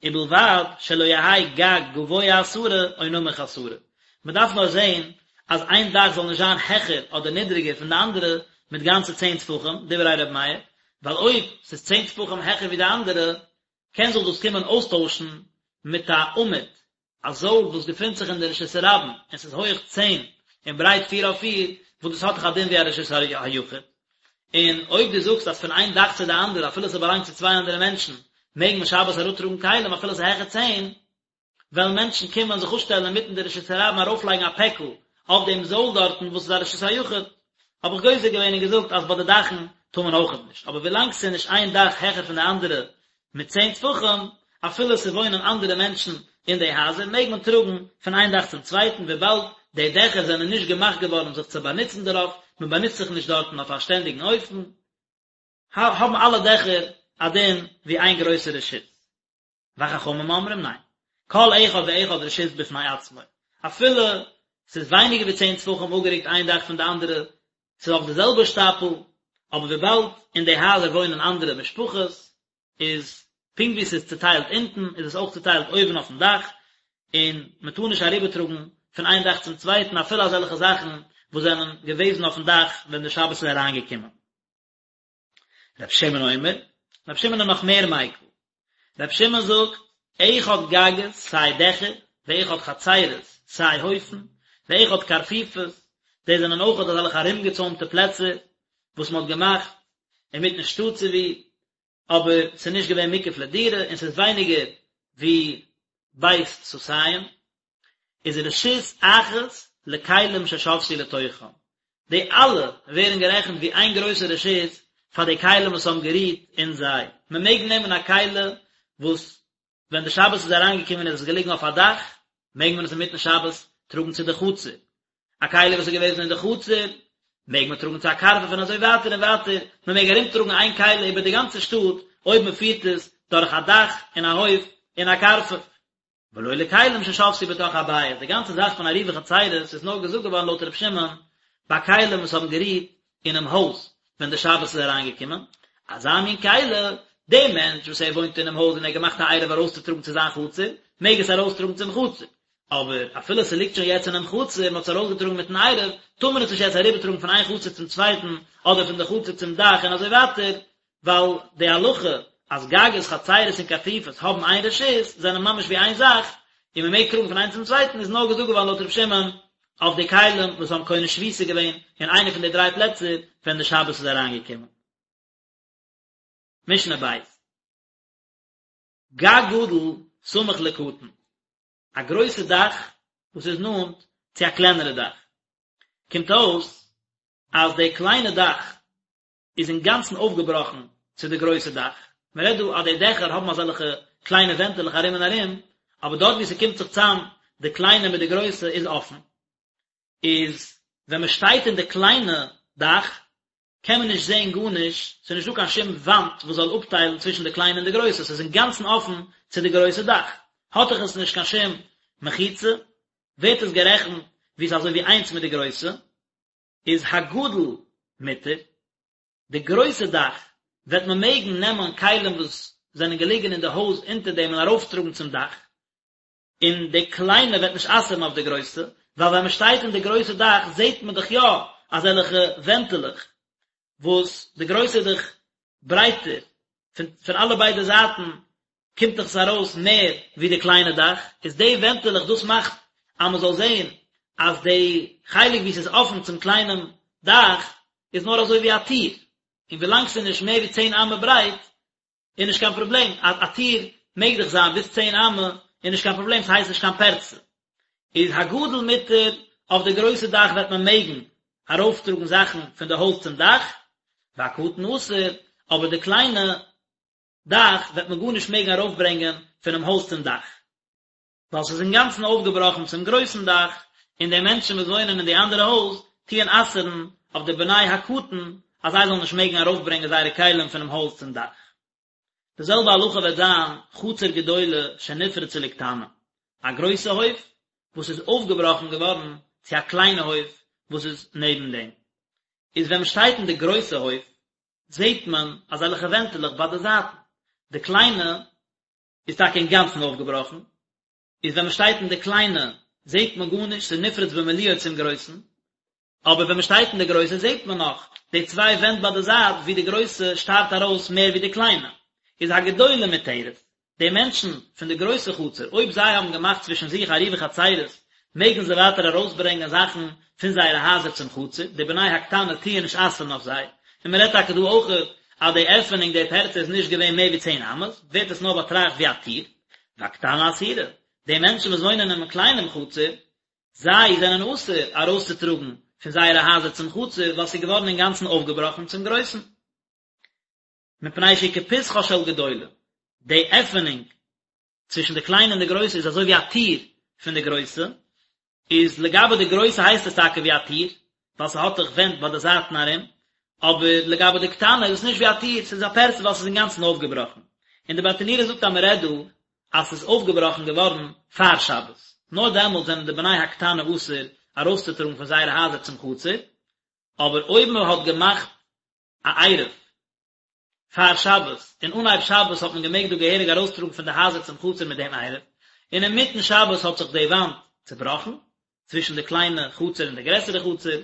ובלבד שלא יהא גג גבוה עשרה או נמוך עשרה, מען דארף נאר זען אז איין דאך זאל נישט זיין העכער אדער נידריגער פון די אנדערע מיט גאנצע צען טפחים, דברי ר' מאיר, ווייל אויב ס'איז צען טפחים העכער ווי די אנדערע, קען זיך דאס קומען אויסטוישן מיט א עמוד, א זויל וואס געפינט זיך אין די רשות הרבים און ס'איז הויעך צען און ברייט פיר אויף פיר, וואס דאס האט דאך א דין ווי א רשות היחיד. און אויב דו זאגסט אז פון איין דאך צו די אנדערע אפילו ס'באלאנגט צו צוויי אנדערע מענטשן מעג מען שבת אראפטראגן כלים אפילו ס'איז העכער צען, וועלן מענטשן קומען זיך אפשטעלן אינמיטן די רשות הרבים ארויפלייגן א פעקל אויף דעם זויל דארטן וואס איז א רשות היחיד, האב איך גוזר געווען און געזאגט אז ביי די דאכן טאר מען אויכעט נישט, אבער ווילאנג ס'איז נישט איין דאך העכער פון די אנדערע מיט צען טפחים, אפילו ס'וואוינען אנדערע מענטשן אין די הייזער, מעג מען טראגן פון איין דאך צום צווייטן, וויבאלד די דעכער זענען נישט געמאכט געווארן זיך צו באנוצן דערויף, מען באנוצט זיך נישט דארטן אויף א שטענדיגן אופן, האבן אלע דעכער א דין ווי איין גרויסע רשות. וחכמים אומרים ניין, כל אחד ואחד רשות בפני עצמו, אפילו ס'איז ווייניגער ווי צען טפחים אפגערוקט איין דאך פון די אנדערע, ס'איז אויף די זעלבע שטאפל, אבער וויבאלד אין די הייזער וואוינען אנדערע משפחות, איז פונקט ווי ס'איז צוטיילט אונטן, איז עס אויך צוטיילט אויבן אויפן דאך, און מ'טאר נישט אריבערטראגן פון איין דאך צום צווייטן אפילו אזעלכע זאכן וואס זענען געוועזן אויפן דאך ווען די שבת איז אריינגעקומען. רבי שמעון אומר, רבי שמעון איז נאך מער מיקל. רבי שמעון זאגט, אחד גגות, סיי דעכער, ואחד חצרות, סיי הויפן, ואחד קרפיפות, דאס זענען אויך אזעלכע ארומגעצוימטע פלעצער וואס מען האט געמאכט אינמיטן שטאט צו ווי, אבער ס'איז נישט געווען מוקף לדירה און ס'איז ווייניגער ווי בית סאתים, איז רשות אחת לכלים ששבתו לתוכם, די אלע ווערן גערעכנט ווי איין גרויסע רשות פאר די כלים וואס האבן גערוהט אין זיי, מען מעג נעמען א כלי וואס ווען די שבת איז אריינגעקומען איז עס געליגן אויף א דאך, מעג מען עס אינמיטן שבת טראגן צו די חצר, א כלי וואס איז געוועזן אין די חצר מעג מען טראגן צו א קרפף און אזוי ווייטער און ווייטער, מען מעג ארום טראגן איין כלי איבער די גאנצע שטאט אויב מען פירט עס דורך א דאך און א הויף און א קרפף. ולא לכלים ששבתו בתוך הבית, די גאנצע זאך פון עירובי חצירות איז נאר געזאגט געווארן לויט ר' שמעון ביי כלים וואס האבן גערוהט אינעם הויז ווען די שבת איז אריינגעקומען, אזא מין כלי, דער מענטש וואס ער וואוינט אינעם הויז און ער האט געמאכט א עירוב ארויסצוטראגן צו זיין חצר, מעג עס ארויסטראגן צום חצר, אבער אפילו ס'ליגט שוין יעצט אינעם חצר, מען האט עס ארויסגעטראגן מיטן עירוב, טאר מען עס נישט יעצט אריבערטראגן פון איין חצר צום צווייטן, אדער פון די חצר צום דאך און אזוי ווייטער, ווייל די הלכה אז גגות חצירות און קרפיפות האבן איין רשות זענען ממש ווי איין זאך, און מען מעג טראגן פון איינס צום צווייטן איז נאר געזאגט געווארן לויט ר' שמעון אויף די כלים וואס האבן קונה שביתה געווען אין איינע פון די דריי פלעצער ווען די שבת איז אריינגעקומען. משנה ב'. גג גדול סמוך לקטן, א גרויסע דאך וואס איז נאנט צו א קלענערע דאך, קומט אויס אז די קליינע דאך איז אינגאנצן אויפגעבראכן צו די גרויסע דאך, מען רעדט דא אז די דעכער האבן אזעלכע קליינע ווענטעלעך ארום און ארום, אבער דארט וואו ס'קומט זיך צאם די קליינע מיט די גרויסע איז אפן, איז ווען מען שטייט אין די קליינע דאך קען מען נישט זען גארנישט, ס'איז נישטא קיין שום וואנט וואס זאל אפטיילן צווישן די קליינע און די גרויסע, ס'איז אינגאנצן אפן צו די גרויסע דאך, האט דאך עס נישט קיין שום מחיצה, ווערט עס גערעכנט ווי ס'איז אזוי ווי איינס מיט די גרויסע. איז הגדול מותר, די גרויסע דאך. וועט מען מעגן נעמען כלים וואס זענען געליגן אין די הויז אונטער דעם און ארויפטראגן צום דאך, און די קליינע וועט נישט אסר'ן אויף די גרויסע, ווייל ווען מען שטייט אין די גרויסע דאך זעט מען דאך יא אזעלכע ווענטעלעך, וואס די גרויסע איז דאך ברייטער, פון פון אלע ביידע זייטן קומט דאך עס ארויס מער ווי די קליינע דאך, איז די ווענטעלעך דאס מאכט אז מען זאל זען אז די חלק ווי עס איז אפן צום קליינעם דאך איז נאר אזוי ווי א טיר, און ווילאנג ס'איז נישט מער ווי צען אמה ברייט איז נישט קיין פראבלעם, א א טיר מעג דאך זיין ביז צען אמה איז נישט קיין פראבלעם ס'הייסט נישט קיין פרצה. איז הגדול מותר, אויף די גרויסע דאך וועט מען מעגן ארויפטראגן זאכן פון די הויז צום דאך, והקטן אסור, אבער די קליינע דאך וועט מען גארנישט מעגן ארויפברענגען פונעם הויז צום דאך. ווייל ס'איז אינגאנצן אויפגעבראכן צום גרויסן דאך, און די מענטשן וואס וואוינען אין די אנדערע הויז טוען אסר'ן אויף די בני הקטן אז זיי זאלן נישט מעגן ארויפברענגען זייערע כלים פונעם הויז צום דאך. די זעלבע הלכה וועט זיין חצר גדולה שנפרצה לקטנה, א גרויסע הויף וואס איז אויפגעבראכן געווארן צו א קליינע הויף וואס איז נעבן דעם. איז ווען מ'שטייט אין די גרויסע הויף זעט מען אזעלכע ווענטעלעך ביי די זייטן, די קליינע איז טאקע אינגאנצן אויפגעבראכן, איז ווען מען שטייט אין די קליינע זעט מען גארנישט, ס'איז נפרץ במילואו צום גרויסן, אבער ווען מען שטייט אין די גרויסע זעט מען נאך די צוויי ווענט ביי די זייט ווי די גרויסע שטארט ארויס מער ווי די קליינע, איז הגדולה מותרת, די מענטשן פון די גרויסע חצר אויב זיי האבן געמאכט צווישן זיך עירובי חצירות מעגן זיי ווייטער ארויסברענגען זאכן פון זייערע הייזער צום חצר, די בני הקטנה טוען נישט אסר'ן אויף זיי, און מען רעדט טאקע דא אויכעט אז די עפענונג די פרצה איז נישט געווען מער ווי צען אמות, ווערט עס נאר באטראכט ווי א טיר, והקטנה אסורה, די מענטשן וואס וואוינען אינעם קליינעם חצר, זיי זענען אסור ארויסצוטראגן פון זייערע הייזער צום חצר, ווייל ס'איז געווארן אינגאנצן אויפגעבראכן צום גרויסן. מפני שהיא כפתחה של גדולה, די עפענונג צווישן די קליינע און די גרויסע איז אזוי ווי א טיר פון די גרויסע, איז לגבי די גרויסע הייסט עס טאקע ווי א טיר, ווייל ס'האט דאך ווענט ביי די זייטן ארום, אבער לגבי די קטנה איז עס נישט ווי א טיר, ס'איז א פרצה ווייל ס'איז אינגאנצן אויפגעבראכן. און די ברטנורא זאגט אז מ'רעדט דא אז ס'איז אויפגעבראכן געווארן פאר שבת, נאר דעמאלט זענען די בני הקטנה אסור ארויסצוטראגן פון זייערע הייזער צום חצר, אבער אויב מ'האט געמאכט א עירוב פאר שבת, און אנהייב שבת האט מען געמעגט דא געהעריג ארויסטראגן פון די הייזער צום חצר מיט דעם עירוב, און אינמיטן שבת האט זיך די וואנט צובראכן, צווישן די קליינע חצר און די גרעסערע חצר,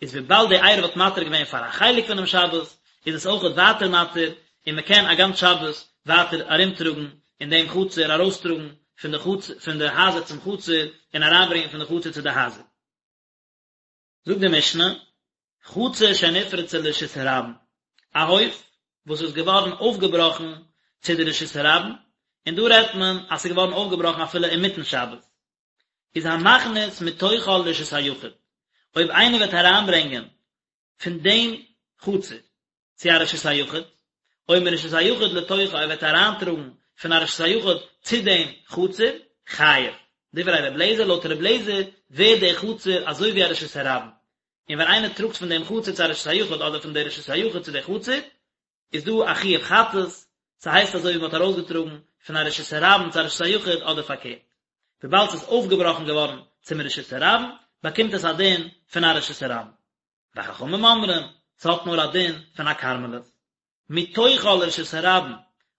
איז וויבאלד די עירוב האט מתיר געווען פאר א חלק פונעם שבת, איז עס אויכעט ווייטער מתיר, און מען קען א גאנץ שבת ווייטער ארומטראגן אין דעם חצר, ארויסטראגן פון די חצר פון די הייזער צום חצר, און אריינברענגען פון די חצר צו די הייזער. זאגט די משנה, חצר שנפרצה לרשות הרבים, א הויף וואס איז געווארן אויפגעבראכן צו די רשות הרבים, און דא רעדט מען אז ס'איז געווארן אויפגעבראכן אפילו אינמיטן שבת, איז המכניס מתוכה לרשות היחיד, אויב איינער וועט אריינברענגען פון דעם חצר צו א רשות היחיד, או מרשות היחיד לתוכה ער וועט אריינטראגן פון א רשות היחיד צו דעם חצר, חייב. דברי ר' לעזער, לויט ר' לעזער ווערט די חצר אזוי ווי א רשות הרבים, און ווען איינער טראגט פון דעם חצר צו א רשות היחיד אדער פון די רשות היחיד צו די חצר, איז דא א חיוב חטאת, ס'הייסט אזוי ווי מ'האט ארויסגעטראגן פון א רשות הרבים צו א רשות היחיד אדער פארקערט. וויבאלד ס'איז אויפגעבראכן געווארן צום רשות הרבים, באקומט עס א דין פון א רשות הרבים. וחכמים אומרים, ס'האט נאר א דין פון א כרמלית. מתוכה לרשות הרבים,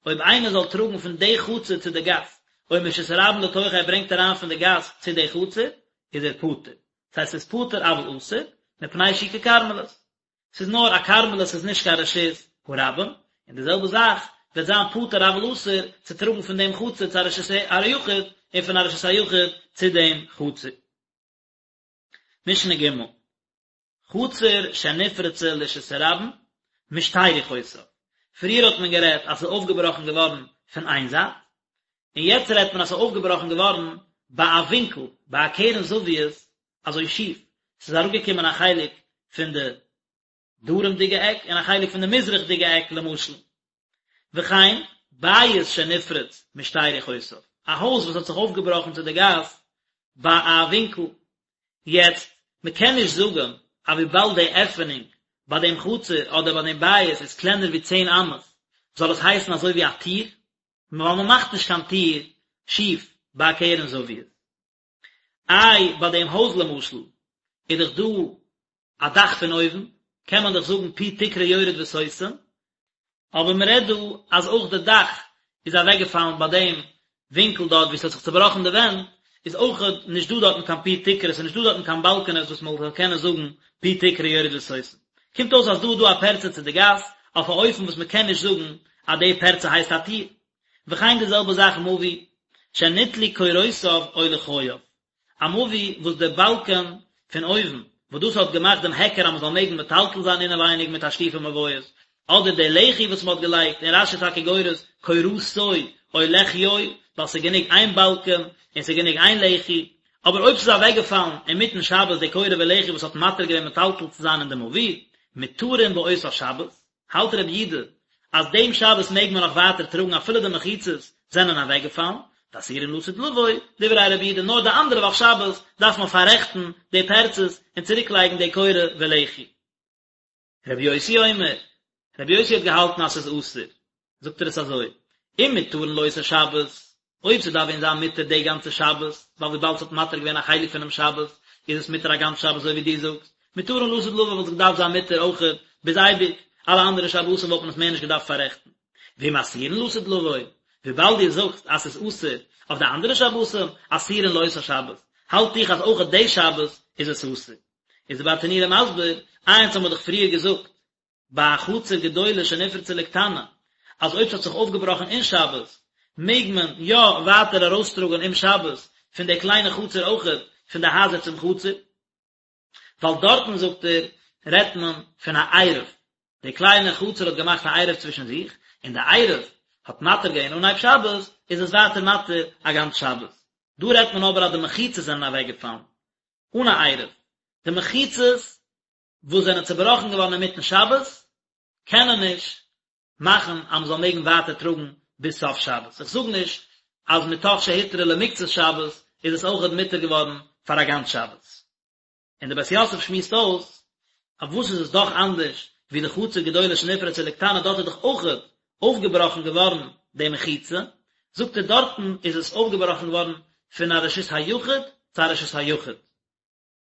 אויב איינער זאל טראגן פון די חצר צו די גאס, או מרשות הרבים לתוכה ער ברענגט אריין פון די גאס צו די חצר, איז ער פטור. ס'הייסט ס'איז פטור אבל אסור, מפני שהיא ככרמלית. ס'איז נאר א כרמלית ס'איז נישט קיין רשות הרבים, און די זעלבע זאך וועט זיין פטור אבל אסור צו טראגן פון דעם חצר צו א רשות היחיד, און פון א רשות היחיד צו דעם חצר. משנה ג' חצר שנפרצה לרשות הרבים, משתי רוחותיו. פריער האט מען גערעדט אז ס'איז אויפגעבראכן געווארן פון איין זייט, און יעצט רעדט מען אז ס'איז אויפגעבראכן געווארן ביי א ווינקל, ביי א קרן זווית, אזוי שיף, ס'איז אראפגעקומען א חלק פון די דרומ'דיגע עק און א חלק פון די מזרח'דיגע עק למשל. וכן, בית שנפרץ משתי רוחותיו, א הויז וואס האט זיך אויפגעבראכן צו די גאס ביי א ווינקל. יעצט, מען קען נישט זאגן אז וויבאלד די עפענונג ביי דעם חצר אדער ביי דעם בית איז קלענער ווי צען אמות, זאל עס הייסן אזוי ווי א טיר, ווייל מען מאכט נישט קיין טיר שיף ביי א קרן זווית. איי ביי דעם הויז למשל איז דאך דא א דאך פון אויבן, קען מען דאך זאגן פי תקרה יורד וסותם. אבער מען רעדט דא אז אויך די דאך איז אוועקגעפאלן ביי דעם ווינקל דארט וואו ס'האט זיך צובראכן די ווענט, איז אויכעט נישט דא דארטן קיין פי תקרה, ס'איז נישט דא דארטן קיין באלקענעס וואס מען זאל קענען זאגן פי תקרה יורד וסותם. קומט אויס אז דא איז דא א פרצה צו די גאס, אויף א אופן וואס מען קען נישט זאגן אז די פרצה הייסט א טיר. וכן די זעלבע זאך מבוי שניטלו קורותיו או לחייו. א מבוי וואס די באלקען פון אויבן, וואס דאס האט געמאכט דעם היכר אז מען זאל מעגן מטלטל זיין אינעווייניג מיט תשליכי מבואות, אדער די לחי וואס מען האט געלייגט, און רש"י טאקע גורס קורתו או לחיו, ווייל ס'איז גענוג איין באלקען און ס'איז גענוג איין לחי, אבער אויב ס'איז אוועקגעפאלן אינמיטן שבת די קורה ולחי וואס האט מתיר געווען מטלטל צו זיין אין די מבוי, מותרין באותה שבת, האלט רבי יודא אז דעם שבת מעג מען נאך ווייטער טראגן אפילו די מחיצות זענען אוועקגעפאלן, ואסורין לעתיד לבוא, דברי רבי יודא נאר די אנדערע וואך שבת דארף מען פאררעכטן די פרצות און צוריק לייגן די קורה ולחי. רבי יוסי אומר, רבי יוסי האט געהאלטן אז ס'איז אסור, זאגט ער עס אזוי, אם מותרין לאותה שבת, אויב ס'דארף ווען זיין מותר די גאנצע שבת, ווייל וויבאלד ס'האט מתיר געווען א חלק פונעם שבת, איז עס מותר א גאנץ שבת אזוי ווי דו זאגסט, מותרין לעתיד לבוא וואלט עס געדארפט זיין מותר אויכעט ביז אייביג, אלע אנדערע שבתים וואלט מען עס מער נישט געדארפט פאררעכטן. ואם אסורין לעתיד לבוא, וויבאלד דו זאגסט אז ס'איז אסור אויף די אנדערע שבתים, אסורין לאותה שבת, האלט איך אז אויכעט די שבת איז עס אסור. איז די ברטנורא מסביר, איינס האבן מיר דאך פריער געזאגט, ביי א חצר גדולה שנפרצה לקטנה, אז אויב ס'האט זיך אויפגעבראכן אין שבת, מעג מען יא ווייטער ארויסטראגן אום שבת פון די קליינע חצר אויכעט, פון די הייזער צום חצר. ווייל דארטן זאגט ער, רעדט מען פון א עירוב, די קליינע חצר האט געמאכט א עירוב צווישן זיך, און די עירוב האט מתיר געווען אנהייב שבת, איז עס ווייטער מתיר א גאנץ שבת. דא רעדט מען אבער אז די מחיצות זענען אוועקגעפאלן, אן א עירוב. די מחיצות וואס זענען צובראכן געווארן אינמיטן שבת, קענען נישט מאכן אז מען זאל מעגן ווייטער טראגן ביז סוף שבת. איך זאג נישט אז מתוך שהותרה למקצת שבת איז עס אויכעט מותר געווארן פאר א גאנץ שבת. און דער בית יוסף שמועסט אויס, אויף וואס איז עס דאך אנדערש ווי די חצר גדולה שנפרצה לקטנה, דארט איז דאך אויכעט אויפגעבראכן געווארן די מחיצה, זאגט ער דארטן איז עס אויפגעבראכן געווארן פון א רשות היחיד צו א רשות היחיד.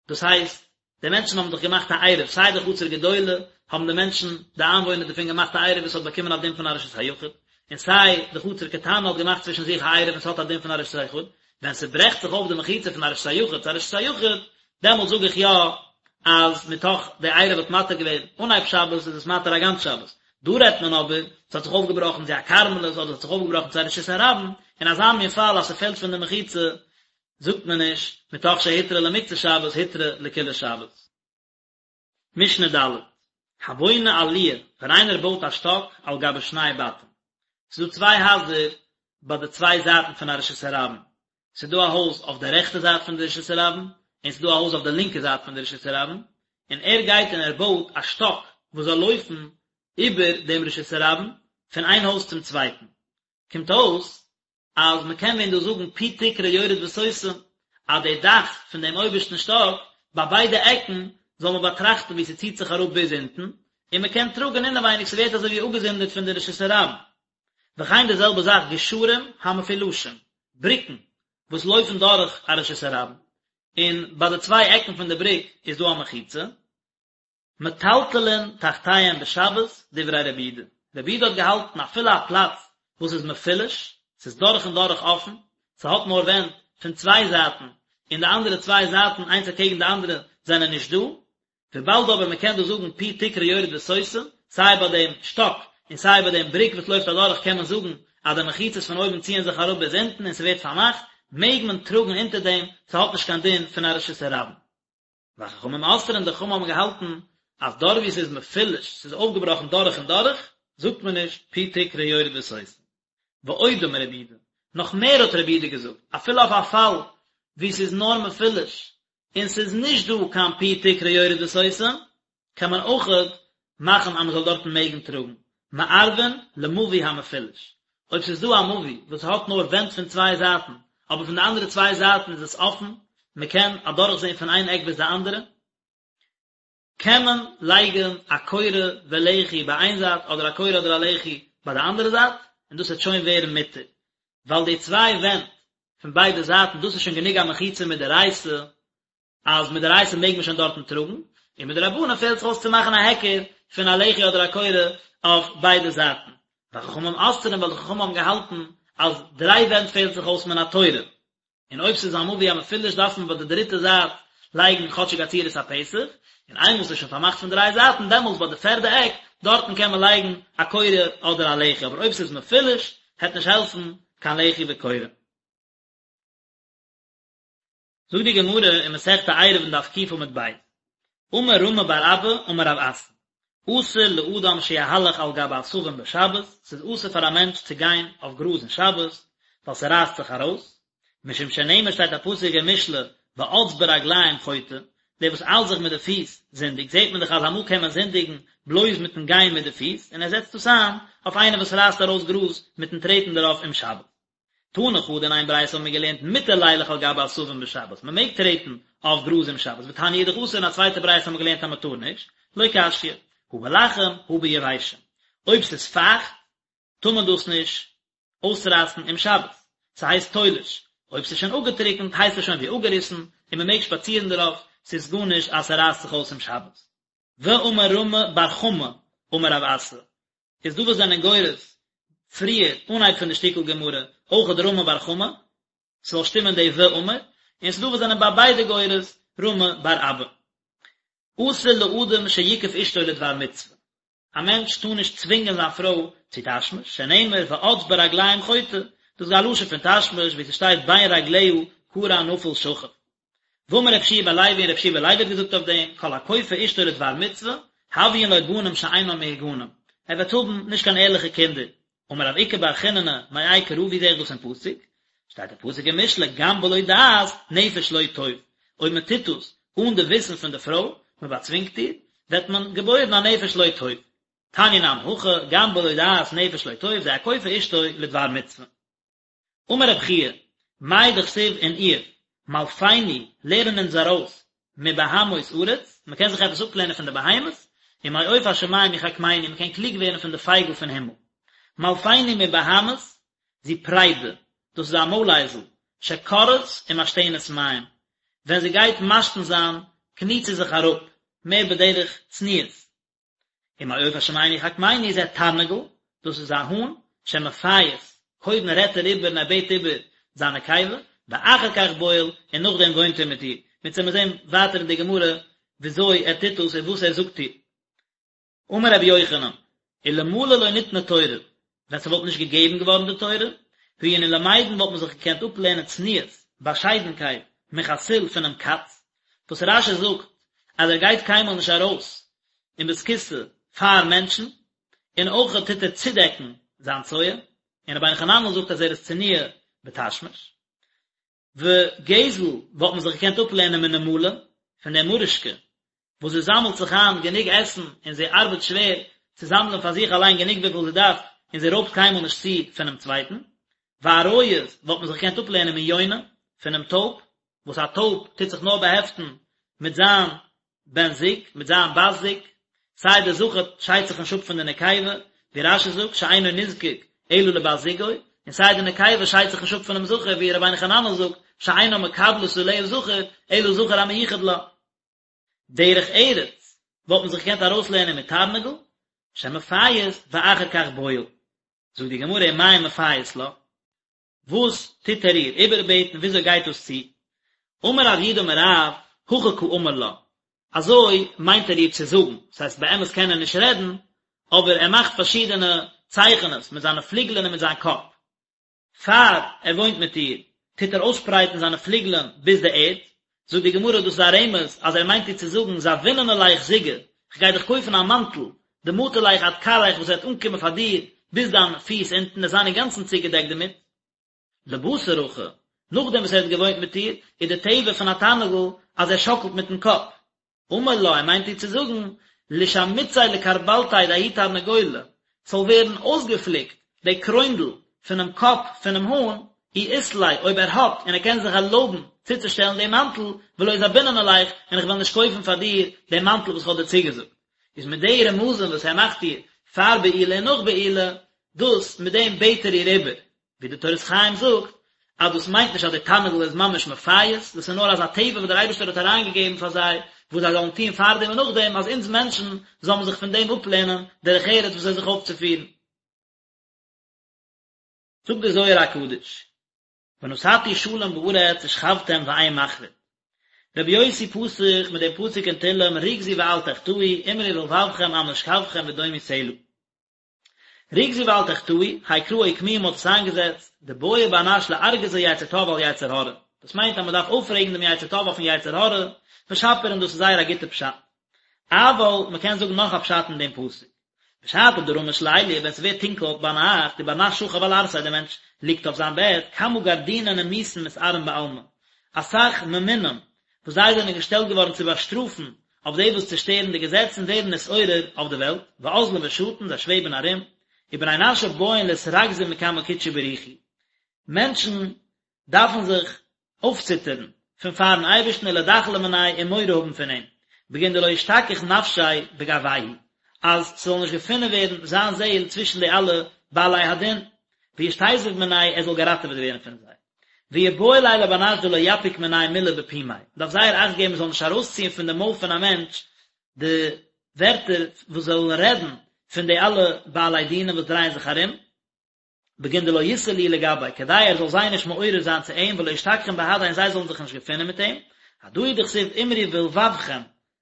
דאס הייסט, די מענטשן האבן דאך געמאכט א עירוב, סיי די חצר גדולה האבן די מענטשן, די איינוואוינער דערפון געמאכט א עירוב וואס האט באקומען א דין פון א רשות היחיד, און סיי די חצר קטנה האט געמאכט צווישן זיך א עירוב און ס'האט א דין פון א רשות היחיד, ווען ס'ברעכט זיך אויף די מחיצה פון א רשות היחיד צו א רשות היחיד, דעמאלט זאג איך יא אז מתוך די עירוב האט מתיר געווען אנהייב שבת איז עס מתיר א גאנץ שבת. דא רעדט מען אבער, ס'האט זיך אויפגעבראכן צו א כרמלית אדער ס'האט זיך אויפגעבראכן צו א רשות הרבים, אין אזא מין פאל אז ס'פעלט פון די מחיצה, זאגט מען נישט, מתוך שהותרה למקצת שבת הותרה לכולה שבת. משנה ד', הבונה עליה, ווען איינער בויט א שטאק על גבי שני בתים. ס'איז דא צוויי הייזער ביי די צוויי זייטן פון א רשות הרבים. ס'איז דא א הויז אויף די רעכטע זייט פון די רשות הרבים, און ס'איז דא א הויז אויף די לינקע זייט פון די רשות הרבים, און ער גייט און ער בויט א שטאק וואס זאל לויפן איבער דעם רשות הרבים פון איין הויז צום צווייטן. קומט אויס אז מען קען ווען דא זאגן פי תקרה יורד וסותם, אז די דאך פון דעם אויבערשטן שטאק, ביי ביידע עקן, זאל מען באטראכטן ווי ס'ציט זיך אראפ ביז אונטן, און מען קען טראגן אינעווייניג, ס'ווערט אזוי ווי אפגעזונדערט פון די רשות הרבים. וכן די זעלבע זאך גשרים המפולשים, בריקן וואס לויפן דורך א רשות הרבים, און ביי די צוויי עקן פון די בריק איז דא א מחיצה, מטלטלין תחתיהם בשבת, דברי רבי יהודה. רבי יהודה האט געהאלטן אפילו א פלאץ וואס איז מפולש, ס'איז דורך און דורך אפן, ס'האט נאר ווענט פון צוויי זייטן, און די אנדערע צוויי זייטן איינס אקעגן די אנדערע זענען נישט דא, וויבאלד אבער מ'קען דא זאגן פי תקרה יורד וסותם, סיי ביי דעם שטאק און סיי ביי דעם בריק וואס לויפט אדורך קען מען זאגן אז די מחיצות פון אויבן ציען זיך אראפ ביז אונטן און ס'ווערט פארמאכט, מעג מען טראגן אונטער דעם, ס'האט נישט קיין דין פון א רשות הרבים. וחכמים אוסרין די חכמים האבן געהאלטן אז דארט ווי ס'איז מפולש, ס'איז אויפגעבראכן דורך און דורך, זאגט מען נישט פי תקרה יורד וסותם. ועוד אמר רבי יהודה, נאך מער האט רבי יהודה געזאגט, אפילו אויף א פאל ווי ס'איז נאר מפולש, און ס'איז נישט דא קיין פי תקרה יורד וסותם, קען מען אויכעט מאכן אז מען זאל דארטן מעגן טראגן, מערבין למבוי המפולש. אויב ס'איז דא א מבוי וואס האט נאר ווענט פון צוויי זייטן, אבער פון די אנדערע צוויי זייטן איז עס אפן, מען קען אדורכזען פון איין עק ביז די אנדערע, קען מען לייגן א קורה ולחי ביי איין זייט אדער א קורה אדער א לחי ביי די אנדערע זייט, און דאס וועט שוין ווערן מותר, ווייל די צוויי ווענט פון ביידע זייטן דאס איז שוין גענוג א מחיצה מדאורייתא, אז מדאורייתא מעג מען שוין דארטן טראגן, און מדרבנן פעלט זיך אויס צו מאכן א היכר פון א לחי אדער א קורה אויף ביידע זייטן. וחכמים אוסרין ווייל די חכמים האבן געהאלטן אז דריי ווענט פעלט זיך אויס מן התורה, און אויב ס'איז א מבוי המפולש דארף מען ביי די דריטע זייט לייגן כאטשיג א צורת הפתח, און איינמאל ס'איז שוין פארמאכט פון דריי זייטן דעמאלטס ביי די פערדע עק דארטן קען מען לייגן א קורה אדער א לחי, אבער אויב ס'איז מפולש העט נישט העלפן קיין לחי וקורה. זאגט די גמרא אין מסכת עירובין דף ק עמוד ב', אמר רמי בר אבא אמר רב אסי, אסור לאדם שיהלך על גבי עשבים בשבת, ס'איז אסור פאר א מענטש צו גיין אויף גראז אין שבת, ווייל ס'רייסט זיך ארויס, משום שנאמר שטייט א פסוק אין משלי, ואץ ברגלים חוטא, דער וואס איילט זיך מיט די פיס זינדיגט, זעט מען דאך אז אמאל קען מען זינדיגן בלויז מיטן גיין מיט די פיס, און ער זעצט דאס איין אויף איינער וואס רייסט ארויס גראז מיטן טרעטן דערויף אום שבת. תני חדא אין איין ברייתא האבן מיר געלערנט מותר לילך על גבי עשבים בשבת, מען מעג טרעטן אויף גראז אום שבת, ותניא אידך אסור אין א צווייטע ברייתא האבן מיר געלערנט אז מען טאר נישט, לא קשיא, הא בלחים הא ביבשים, אויב ס'איז פייכט טאר מען דאס נישט אויסרייסן אום שבת, ס'הייסט תולש, אויב ס'איז שוין אפגעטריקנט הייסט עס שוין ווי אפגעריסן און מען מעג שפאצירן דערויף, ס'איז גארנישט אז ס'רייסט זיך אויס אום שבת. ואמר רמי בר חמא אמר רב אסי, איז דא וואס זענען גורס פריער אנהייב פון די שטיקל גמרא אויכעט רמי בר חמא, ס'זאל שטימען די ואמר, און ס'דא וואס זענען ביי ביידע גורס רמי בר אבא. אסור לאדם שיכוף אשתו לדבר מצוה, א מענטש טאר נישט צווינגען זיין פרוי צו תשמיש, שנאמר ואץ ברגלים חוטא, דאס איז א לשון פון תשמיש ווי ס'שטייט בין רגליה כרע נפול שכב. ואמר רבי יהושע בן לוי און רבי יהושע בן לוי האט געזאגט אויף דעם, כל הכופה אשתו לדבר מצוה, הויין לו בנים שאינם מהוגנים, ער וועט האבן נישט קיין ערליכע קינדער. אמר רב איקא בר חיננא, מאי קרא ווי זעה איך דאס אין פסוק? שטייט אין פסוק אין משלי, גם בלא דעת, נפש לא טוב, אויב מען טוט דאס אן די וויסן פון די פרוי, מען באצווינגט איר, וועט מען געבוירן א נפש לא טוב. תניא נמי הכי, גם בלא דעת נפש לא טוב, זה הכופה אשתו לדבר מצוה. אמר רב חייא, מאי דכתיב אין איוב, מלפני, לערן אונז ארויס, מבהמות ארץ, מען קען זיך עפעס אפלערנען פון די בהמות, ומעוף השמים יחכמנו, מען קען קלוג ווערן פון די פייגל פון הימל. מלפני מבהמות, זו פרידה, דאס איז א מוילאייזל, שכורעת ומשתנת מים, ווען זי גייט משתין זיין, קניט זי זיך אראפ, מער בדרך צניעות. ומעוף השמים יחכמנו זה תרנגול, דאס איז א האן, שמפייס, קודם רעדט ער איבער און ער בעט איבער זיין נקבה, ואחר כך בועל, און נאכדעם וואוינט ער מיט איר. מיר וועלן זען ווייטער אין די גמרא וויאזוי ער טוט דאס און וואס ער זאגט איר. אמר רבי יוחנן, אלמלא לא ניתנה תורה, ווען ס'וואלט נישט געגעבן געווארן די תורה, היינו למדין וואלט מען זיך געקענט אפלערנען צניעות, באשיידנקייט, מחתול פונעם קאץ, וואס רש"י זאגט אז ער גייט קיינמאל נישט ארויס אין בית הכסא פאר מענטשן, און אויך טוט ער צודעקן זיין צואה, און רבינו חננאל זאגט אז ער איז צנוע בתשמיש. וגזל וואלט מען זיך געקענט אפלערנען מנמלה, פון דער מורישקע, וואס זי זאמלט זיך איין גענוג עסן און זי ארבעט שווער צו זאמלען פאר זיך אליין גענוג וויפיל זי דארף און זי רויבט קיינמאל נישט צו פונעם צווייטן. ועריות וואלט מען זיך געקענט אפלערנען מיונה, פונעם טויב, וואס א טויב טוט זיך נאר באהעפטן מיט זיין בן זוג, מיט זיין בת זוג, סיי דער זכר שיידט זיך נישט אפ פון די נקבה, ווי רש"י זאגט שאינו נזקק אלא לבת זוגו, און סיי די נקבה שיידט זיך נישט אפ פונעם זכר, ווי רבינו חננאל זאגט שאינה מקבלת עליה זכר, אלא זכר המיוחד לה. דרך ארץ וואלט מען זיך געקענט ארויסלערנען מתרנגול, שמפייס ואחר כך בועל. זאגט די גמרא ומאי מפייס לה, וואס טוט ער איר איבערבעטן, וויאזוי גייט דאס צו? אמר רב יהודה אמר רב, הכי קאמר לה, אזוי מיינט ער איר צו זאגן, דאס הייסט באמת קען ער נישט רעדן, אבער ער מאכט פארשידענע צייכענעס מיט זיינע פליגלען און מיט זיין קאפ. פאר ער וואוינט מיט איר, טוט ער אויסשפרייטן זיינע פליגלען ביז די ערד, זאגט די גמרא דאס איז א רמז אז ער מיינט איר צו זאגן זביננא ליך זיגא, כ'גיי דיך קויפן א מאנטל, דמטי ליך עד כרעיך וואס וועט אנקומען פאר דיר ביז דיין פיס אונטן וועסט זיין אינגאנצן צוגעדעקט דערמיט. לבתר הכי, נאכדעם וואס ער האט געוואוינט מיט איר, איז די טבע פון א תרנגול אז ער שאקלט מיטן קאפ. אמר לה, ער מיינט איר צו זאגן, לישמיציה לכרבלתיה דההוא תרנגולא, ס'זאל ווערן אויסגעפליקט די קרוינדל פונעם קאפ פונעם האן, אי אית ליה, אויב ער האט און ער קען זיך ערלויבן צוצושטעלן דעם מאנטל, ולא זביננא ליך, און איך וועל נישט קויפן פאר דיר דעם מאנטל וואס איך האב דיר צוגעזאגט. איז מיט די רמזים וואס ער מאכט איר פאר בעילה און נאך בעילה, דאס מיט דעם בעט ער איר איבער, ווי די תורת חיים זאגט אז דאס מיינט נישט אז די תרנגול איז ממש מפייס, דאס איז נאר אזא טבע וואס דער אייבערשטער האט אריינגעגעבן פאר זיי, וואס זיי זאלן טון פארדעם און נאכדעם, אז אונז מענטשן זאל מען זיך פון דעם אפלערנען דרך ארץ וויאזוי זיך אויפצופירן. זאגט דער זוהר הקדוש, ונתתי שלום בארץ ושכבתם ואין מחריד. רבי יוסי פתח מיט דעם פסוק אין תהלים רגזו ואל תחטאו, אמרו בלבבכם על משכבכם ודומו סלה. רגזו ואל תחטאו, האי קרא אוקמוה מ'האט עס איינגעזעצט, דבעי בר נש לארגזא יצר טוב על יצר הרע. דאס מיינט אז מ'דארף אויפרעגן דעם יצר טוב אויפן יצר הרע, ושפיר און דאס איז זייער א גוטע פשט. אבל, מ'קען זאגן נאך א פשט אין דעם פסוק. בשעתא דרמש ליליא, ווען ס'ווערט טונקל ביינאכט, ובר נש שכיב על ערסיה, דער מענטש ליגט אויף זיין בעט, כמה גרדינין נימוסין מתערין בעלמא, אסאך ממונים וואס זיי זענען געשטעלט געווארן צו באשטראפן אויף די וואס צושטערן די געזעצן ווערן נתעורר אויף די וועלט, ואזלין ושטין, זיי שוועבן ארום, ובני נשא בעיין לאתרגזא מקמי קודשא בריך הוא. מענטשן דארפן זיך אויפציטערן פון פארן אייבערשטן ולדחלא מניה און מורא האבן פון אים, בגין דלא אשתכח נפשיה בגוייהו, אז ס'זאל נישט געפונען ווערן זיין זעהל צווישן די אלע בעלי הדין, וישתיזיב מנייהו ער זאל געראטעוועט ווערן פון זיי. ויבעי ליה לבר נש דלא יפיק מנייהו מלה בפומיה, מ'דארף זייער אכט געבן מ'זאל נישט ארויסציען פון די מויל פון א מענטש די ווערטער וואס זאלן רעדן פון די אלע בעלי דינים וואס דרייען זיך ארום, בגין דלא יתער להו לגביה, כדי ער זאל זיי נישט מעורר זיין צו אים, ולא ישתכחון בהדיה און זיי זאלן זיך נישט געפינען מיט אים, הדא הוא דכתיב אמרו בלבבכם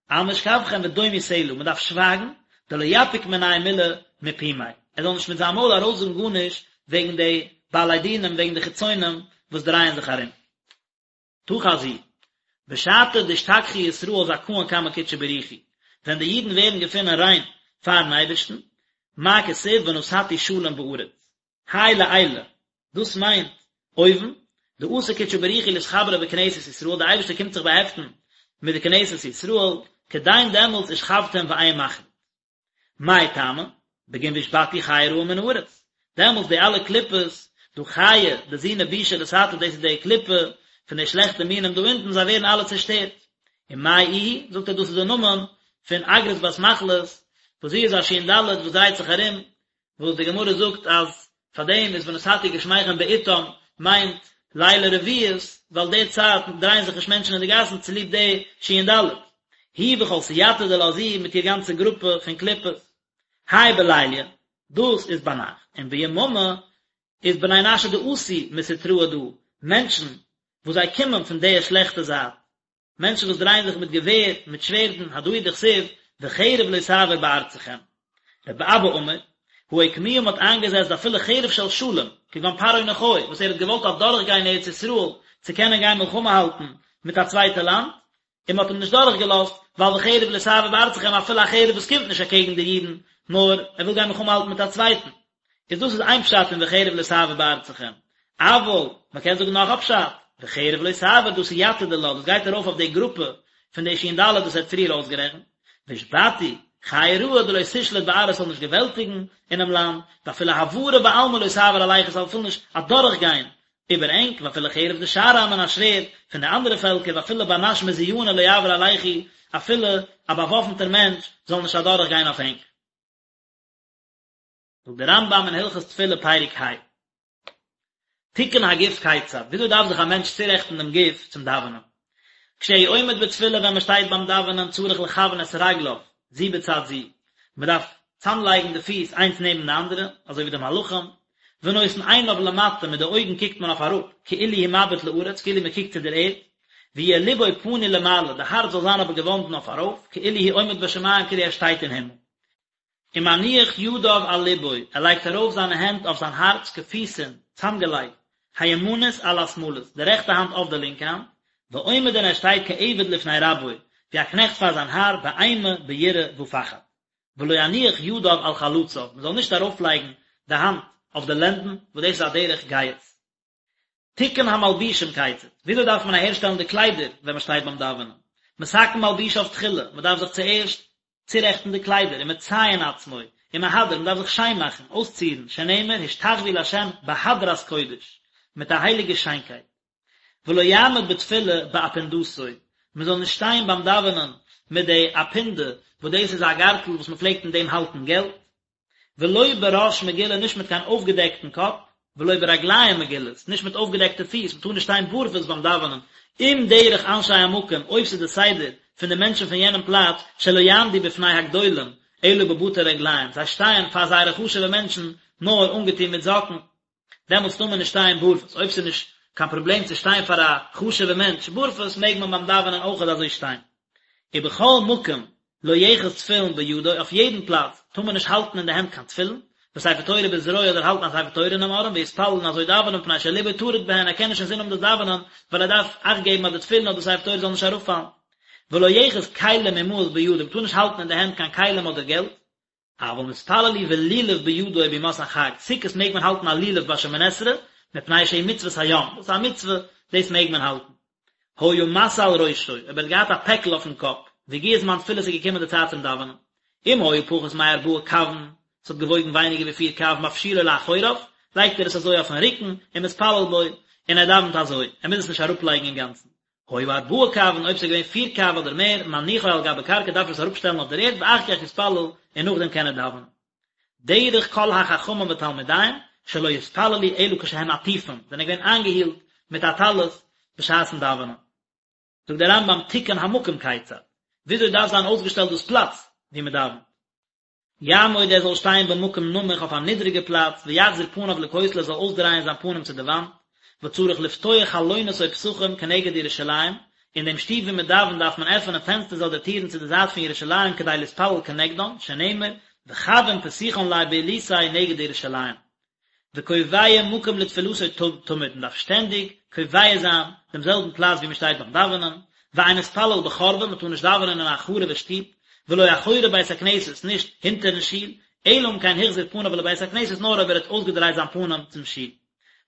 על משכבכם ודומו סלה, מען דארף שווייגן, דלא יפיק מנייהו מלה מפומיה, ער זאל נישט מיט זיין מויל ארויסזאגן גארנישט וועגן די בעלי דינים, וועגן די חיצונים וואס דרייען זיך ארום. תא חזי, בשעתא דאשתכחו ישראל זכאין קמי קודשא בריך הוא, ווען די אידן ווערן געפונען ריין פארן אייבערשטן, מה כתיב ונתתי שלום בארץ, האי לעילא, דאס מיינט אויבן, דאתי קודשא בריך הוא לאתחברא בכנסת ישראל, די אייבערשטער קומט זיך באהעפטן מיט די כנסת ישראל, כדין דעמאלטס ושכבתם ואין מחריד. מאי טעמא? בגין ואשבתו חיה רעה מן הארץ. דעמאלטס די אלע קליפות, דא חיה, דזינה בישא לתתא, דאס איז די קליפה פון די שלעכטע מינים דא אונטן, זיי ווערן אלע צעשטערט. ומאי איהי? זאגט ער דאס איז די נאמען פון אגרת בת מחלת, וואס זי איז א שין ד' וואס דרייט זיך ארום, וואס די גמרא זאגט אז פאר דעם איז ונתתי גשמיכם בעתם מיינט לילי רביעית, ווייל די צייט דרייען זיך נישט מענטשן אין די גאסן צוליב די שין ד'. היא וכל סייעתא דילה זי מיט איר גאנצע גרופע פון קליפות. האי בליליא, דאס איז ביינאכט, און ביממא איז בני נשא דאתו מסטרא דא, מענטשן וואס זיי קומען פון די שלעכטע זייט, מענטשן וואס דרייען זיך מיט געווער, מיט שווערדן, הדא הוא דכתיב, וחרב לא תעבור בארצכם. רבי אבא אמר, הא אוקמוה מ'האט איינגעזעצט דאפילו חרב של שלום, כגון פרעה נכה, וואס ער האט געוואלט אדורכגיין ארץ ישראל צו קענען גיין מלחמה האלטן מיט א צווייטע לאנד, און מ'האט אים נישט דורכגעלאזט, ווייל וחרב לא תעבור בארצכם אפילו א חרב וואס קומט נישט אקעגן די אידן, נאר ער וויל גיין מלחמה האלטן מיט א צווייטן. איז דאס איז איין פשט אין וחרב לא תעבור בארצכם, אבל מען קען זאגן נאך א פשט, וחרב לא תעבור דא סייעתא דילה, דאס גייט ארויף אויף די גרופע פון די שין ד' וואס ער האט פריער אויסגערעכנט, והשבתו, חיה רעה דלא תשלוט בארעא ס'זאל נישט געוועלטיגן אינעם לאנד, ואפילו העברה בעלמא לא תעבור עלייכו ס'זאל אפילו נישט אדורכגיין איבער ענק, ואפילו חרב דשאר עמין א שווערד פון די אנדערע פעלקער, ואפילו בר נש מזוינא לא יעבור עלייכו אפילו א באוואפנטער מענטש זאל נישט אדורכגיין אויף ענק. זאגט דער רמב"ם אין הלכות תפילה פרק ה, תיקון הגוף כיצד, וויאזוי דארף זיך א מענטש צורעכטן דעם גוף צום דאווענען? כשהוא עומד בתפילה ווען מען שטייט ביים דאווענען צריך לכוון את רגליו זו בצד זו, מען דארף צאמלייגן די פיס איינס נעבן די אנדערע, אזוי ווי די מלאכים, ונותן עיניו למטה מיט די אויגן קוקט מען אויף אראפ, כאילו הוא מביט לארץ, כאילו מען קוקט צו דער ערד, ויהיה לבו פנוי למעלה, די הארץ זאל זיין אבער געוואנדן אויף ארויף, כאילו הוא עומד בשמים, כאילו ער שטייט אין הימל. ומניח ידיו על לבו, ער לייגט ארויף זיינע הענט אויף זיין הארץ כפותין, צאמגעלייגט, הימנית על השמאלית, די רעכטע האנט אויף די לינקע האנט, ועומד און ער שטייט כעבד לפני רבו, ווי א קנעכט פאר זיין האר, באימה, ביראה ופחד. ולא יניח ידיו על חלציו, מען זאל נישט ארויפלייגן די האנט אויף די לענדן, וואס דאס איז א דרך גאות. תיקון המלבושים כיצד, וויאזוי דארף מען אהערשטעלן די קליידער ווען מען שטייט ביים דאווענען? מתקן מלבושיו תחילה, מען דארף זיך צוערשט צורעכטן די קליידער, ומציין עצמו, ומהדר, מען דארף זיך שיין מאכן, אויסצירן, שנאמר השתחוו לה' בהדרת קודש, מיט א הייליגע שיינקייט. ולא יעמוד בתפילה באפונדתו, מען זאל נישט שטיין ביים דאווענען מיט די אפונדה, וואס דאס איז א גארטל וואס מען פלעגט אין דעם האלטן געלט, ולא בראש מגולה נישט מיט קיין אויפגעדעקטן קאפ, ולא ברגליים מגולות, נישט מיט אויפגעדעקטע פיס, מ'טאר נישט שטיין בארפוס ביים דאווענען, אם דרך אנשי המקום, אויב ס'איז די סדר פון די מענטשן פון יענעם פלאץ, שלא יעמדו בפני הגדולים, אלא בבתי רגליים, זיי שטייען פאר זייערע חשוב'ע מענטשן נאר אנגעטון מיט זאקן. דעמאלטס טאר מען נישט שטיין בארפוס, אויב ס'איז נישט קיין פראבלעם צו שטיין פאר א חשוב'ע מענטש בארפוס מעג מען ביים דאווענען אויכעט אזוי שטיין. ובכל מקום לא יאחז תפילין בידו, אויף יעדן פלאץ טאר מען נישט האלטן אין די הענט קיין תפילין, וספר תורה בזרוע אדער האלטן א ספר תורה אינעם ארעם, ויתפלל און אזוי דאווענען מפני שליבו טרוד בהן, ער קען נישט אינזין האבן דאס דאווענען, ווייל ער דארף אכט געבן אז די תפילין אדער ספר תורה זאל נישט אראפפאלן. ולא יאחז כלים ומעות בידו, מען טאר נישט האלטן אין די הענט קיין כלים אדער געלט, אבל מתפלל הוא ולולב בידו בימות החג, סוכות מעג מען האלטן א לולב ביי שמונה עשרה, מפני שהוא מצוות היום, דאס איז א מצוה, דאס מעג מען האלטן. היה משא על ראשו, אויב ער האט געהאט א פעקל אויפן קאפ, והגיע זמן תפילה ס'איז געקומען די צייט צום דאווענען. אם היה פחות מארבעה קבין, ס'האט געוואויגן ווייניגער ווי פיר קב, מפשילו לאחוריו, לייגט ער עס אזוי אויפן רוקן, ומתפלל בו, און ער דאווענט אזוי, ער מוז עס נישט אראפלייגן אינגאנצן. היה ארבעה קבין, אויב ס'איז געווען פיר קב אדער מער, מניחו על גבי קרקע דארף ער עס אראפשטעלן אויף דער ערד ואחר כך יתפלל און נאכדעם קען ער דאווענען. דרך כל החכמים ותלמידיהם שלא יתפללו אלא כשהם עטופים, זענען געווען איינגעהילט מיט א טלית בשעת'ן דאווענען. זאגט דער רמב"ם תיקון המקום כיצד, וויאזוי דארף זיין אויסגעשטעלט דאס פלאץ וואו מען דאווענט. יעמוד ער זאל שטיין במקום נמוך אויף א נידריגע פלאץ, ויחזיר פניו לכותל ער זאל אויסדרייען זיין פנים צו די וואנט, וצריך לפתוח חלונות או פתחים כנגד ירושלים, אין דעם שטוב וואו מען דאווענט דארף מען עפענען פענסטערס אדער טירן צו די זייט פון ירושלים כדי להתפלל כנגדם, שנאמר, וכוין פתיחן ליה בעילתיה נגד ירושלים. וקובע מקום לתפילתו תמיד, מען דארף שטענדיג קובע זיין דעם זעלבן פלאץ וואו מען שטייט ביים דאווענען, ואין מתפלל בחורבה, מען טאר נישט דאווענען אין א חרוב'ע שטוב, ולא אחורי בית הכנסת, נישט הינטערן שול, אלא אם כן החזיר פניו לבית הכנסת, נאר אויב ער האט אויסגעדרייט זיין פנים צום שול.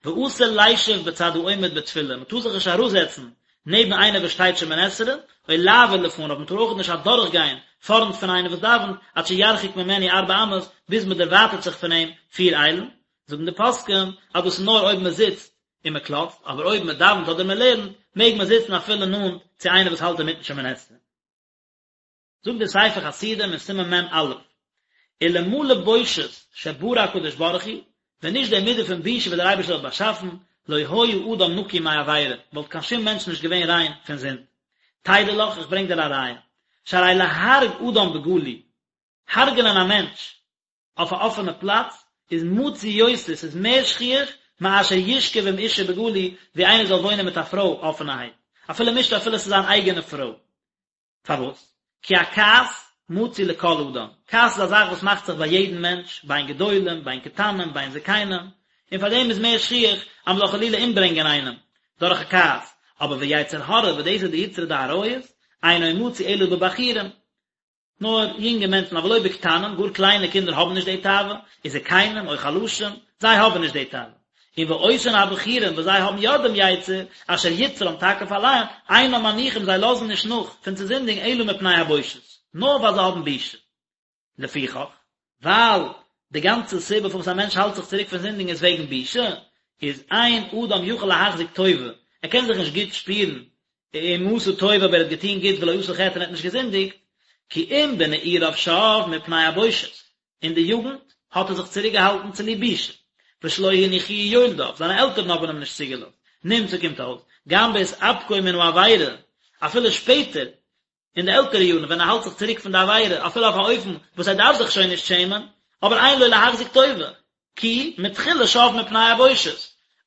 ואסור לישב בצד העומד בתפילה, מען טאר זיך נישט אראפזעצן נעבן איינער וואס שטייט שמונה עשרה, או לעבור לפניו, מען טאר אויך נישט אדורכגיין פארנט פון איינער וואס דאווענט, עד שירחיק ממנו ארבע אמות, ביז מען דערווייטערט זיך פון אים פיר איילן, זאגן די פוסקים אז דאס איז נאר אויב מען זיצט און מען קלאצט, אבער אויב מען דאווענט אדער מען לערנט, מעג מען זיצן אפילו נאנט צו איינער וואס האלט אינמיטן שמונה עשרה. זאגט דער ספר חסידים אין סימן מ"א, אלמלא בושת שברא הקדוש ברוך הוא, ווען נישט די מידה פון בושה וואס דער אייבערשטער האט באשאפן, לא היה אדם נקי מעבירה, וואלט קיין שום מענטש נישט געווען ריין פון זינד. תדע לך, איך ברענג דיר א ראיה, שהרי להרוג אדם בגלוי, הרג'נען א מענטש אויף א אפענע פלאץ, איז מצוי יותר, ס'איז מער שכיח, מאשר ישכב עם אשה בגלוי, ווי איינער זאל וואוינען מיט א פרוי אפענערהייט, אפילו עם אשתו אפילו ס'איז זיין אייגענע פרוי. פארוואס? כי הכעס מצוי לכל אדם, כעס איז א זאך וואס מאכט זיך ביי יעדן מענטש, בין גדולים, בין קטנים, בין זקנים, און פאר דעם איז מער שכיח אז מען זאל חלילה אומברענגען איינעם דורך א כעס, אבער ויצר הרע, וואס דאס איז די יצרא דעריות, אינו מצוי אלא בבחורים, נאר יונגע מענטשן, אבל לא בקטנים, גאר קליינע קינדער האבן נישט די תאווה, וזקנים, או חלשים, זיי האבן נישט די תאווה. און ואותן הבחורים וואס זיי האבן יא דעם יצר, אשר יצרם תקיף עליהם, אינם מניחים זיי לאזן נישט נאך פון צו זינדיגן אלא מפני הבושת, נאר ווייל זיי האבן בושה. לפיכך, ווייל די גאנצע סיבה פארוואס א מענטש האלט זיך צוריק פון זינדיגן איז וועגן בושה, איז אין אדם יכול להחזיק טובה, ער קען זיך נישט גוט שפירן אם עשה טוב אויב ער האט געטון גוט ולא עשה חטא און ער האט נישט געזינדיגט, כי אם בנעוריו שב מפני הבושת, אין די יוגנט האט ער זיך צוריק געהאלטן צוליב בושה, ושלא הניחוהו יולדיו, זיינע עלטערן האבן אים נישט צוגעלאזט, נמצא קומט אויס, גם בהתאפקו מן העבירה, אפילו שפעטער, אין די עלטערע יארן ווען ער האלט זיך צוריק פון די עבירה, אפילו אויף א אופן וואס ער דארף זיך שוין נישט שעמען, אבער אין לו להחזיק טובה, כי מתחילה שב מפני הבושת,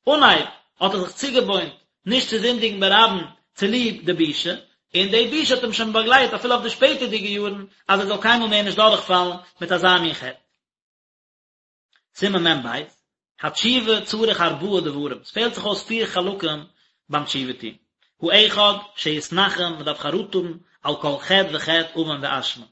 אנהייב האט ער זיך צוגעוואוינט נישט צו זינדיגן ברבים צוליב די בושה, און די בושה האט אים שוין באגלייט אפילו אויף די שפעטערדיגע יארן אז ער זאל קיינמאל מער נישט דורכפאלן מיט אזא מין חטא. סימן מ"ב, התשובה צריך ארבעה דברים, עס פעלט זיך אויס פיר חלקים ביים תשובה טון. האחד, שיתנחם, מען דארף חרטה האבן על כל חטא וחטא עוון ואשמה.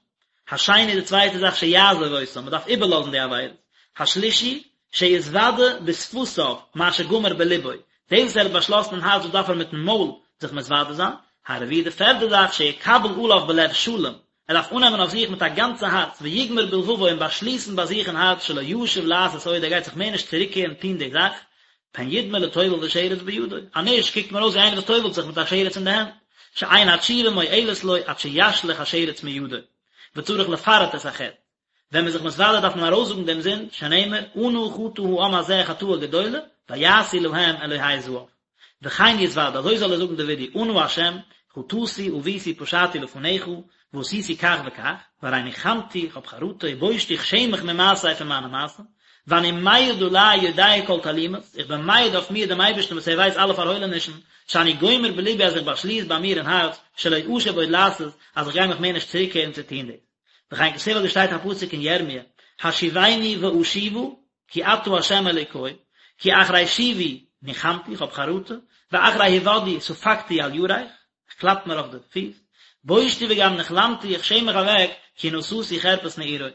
השני, די צווייטע זאך, שיעזוב אותם, מען דארף איבערלאזן די עבירות. השלישי, שיתוודה בשפתיו מה שגמר בלבו, דאס וואס ער האט באשלאסן אין הארץ דאס דארף ער מיטן מויל זיך מתוודה זיין. הרביעי, די פערדע זאך, שיקבל עליו בלב שלם, ער דארף אננעמען אויף זיך מיט א גאנצע הארץ, ויגמור בלבבו און באשליסן ביי זיך אין הארץ שלא ישוב לעשות עוד, ער גייט זיך מער נישט צוריקקערן טון די זאך, פן ידמה לטובל ושרץ בידו, אז נישט קוקט מען אויס ווי איינער וואס טובל'ט זיך מיט א שרץ אין די הענט, שאין התשובה מועלת לו עד שישליך השרץ מידו, וצריך לפרט את החטא, ווען מ'איז זיך מתוודה דארף מען ארויסזאגן דעם זינד, שנאמר, אנה חטא העם הזה חטאה גדולה, ויעשו להם אלהי זהב. וכן יתוודה, אזוי זאל ער זאגן די וידוי, אנא השם, חטאתי עויתי פשעתי לפניך, ועשיתי כך וכך, והרי ניחמתי, איך האב חרטה, ובושתי, איך שעם מיך ממעשיי פון מיינע מעשים, ואני מעיד עלי יודע כל תעלומות, איך בין מעיד אויף מיר דעם אייבערשטן וואס ער ווייסט אלע פארהוילענישן, שאני גומר בלבי אז איך באשליס ביי מיר אין הארץ, שלא אשוב עוד לעשות, אז איך גיי מיך מער נישט צוריקקערן צו טון דאס. וכן כתיב אזוי שטייט א פסוק אין ירמיה, השיבני ואשובה, כי אתה ה' אלוקי, כי אחרי שובי ניחמתי, איך האב חרטה, ואחרי הודעי ספקתי על ירך, איך קלאפ מיר אויף די פיס, בושתי וגם נכלמתי, איך שעם מיך אוועק, כי נשאתי חרפת נעורי.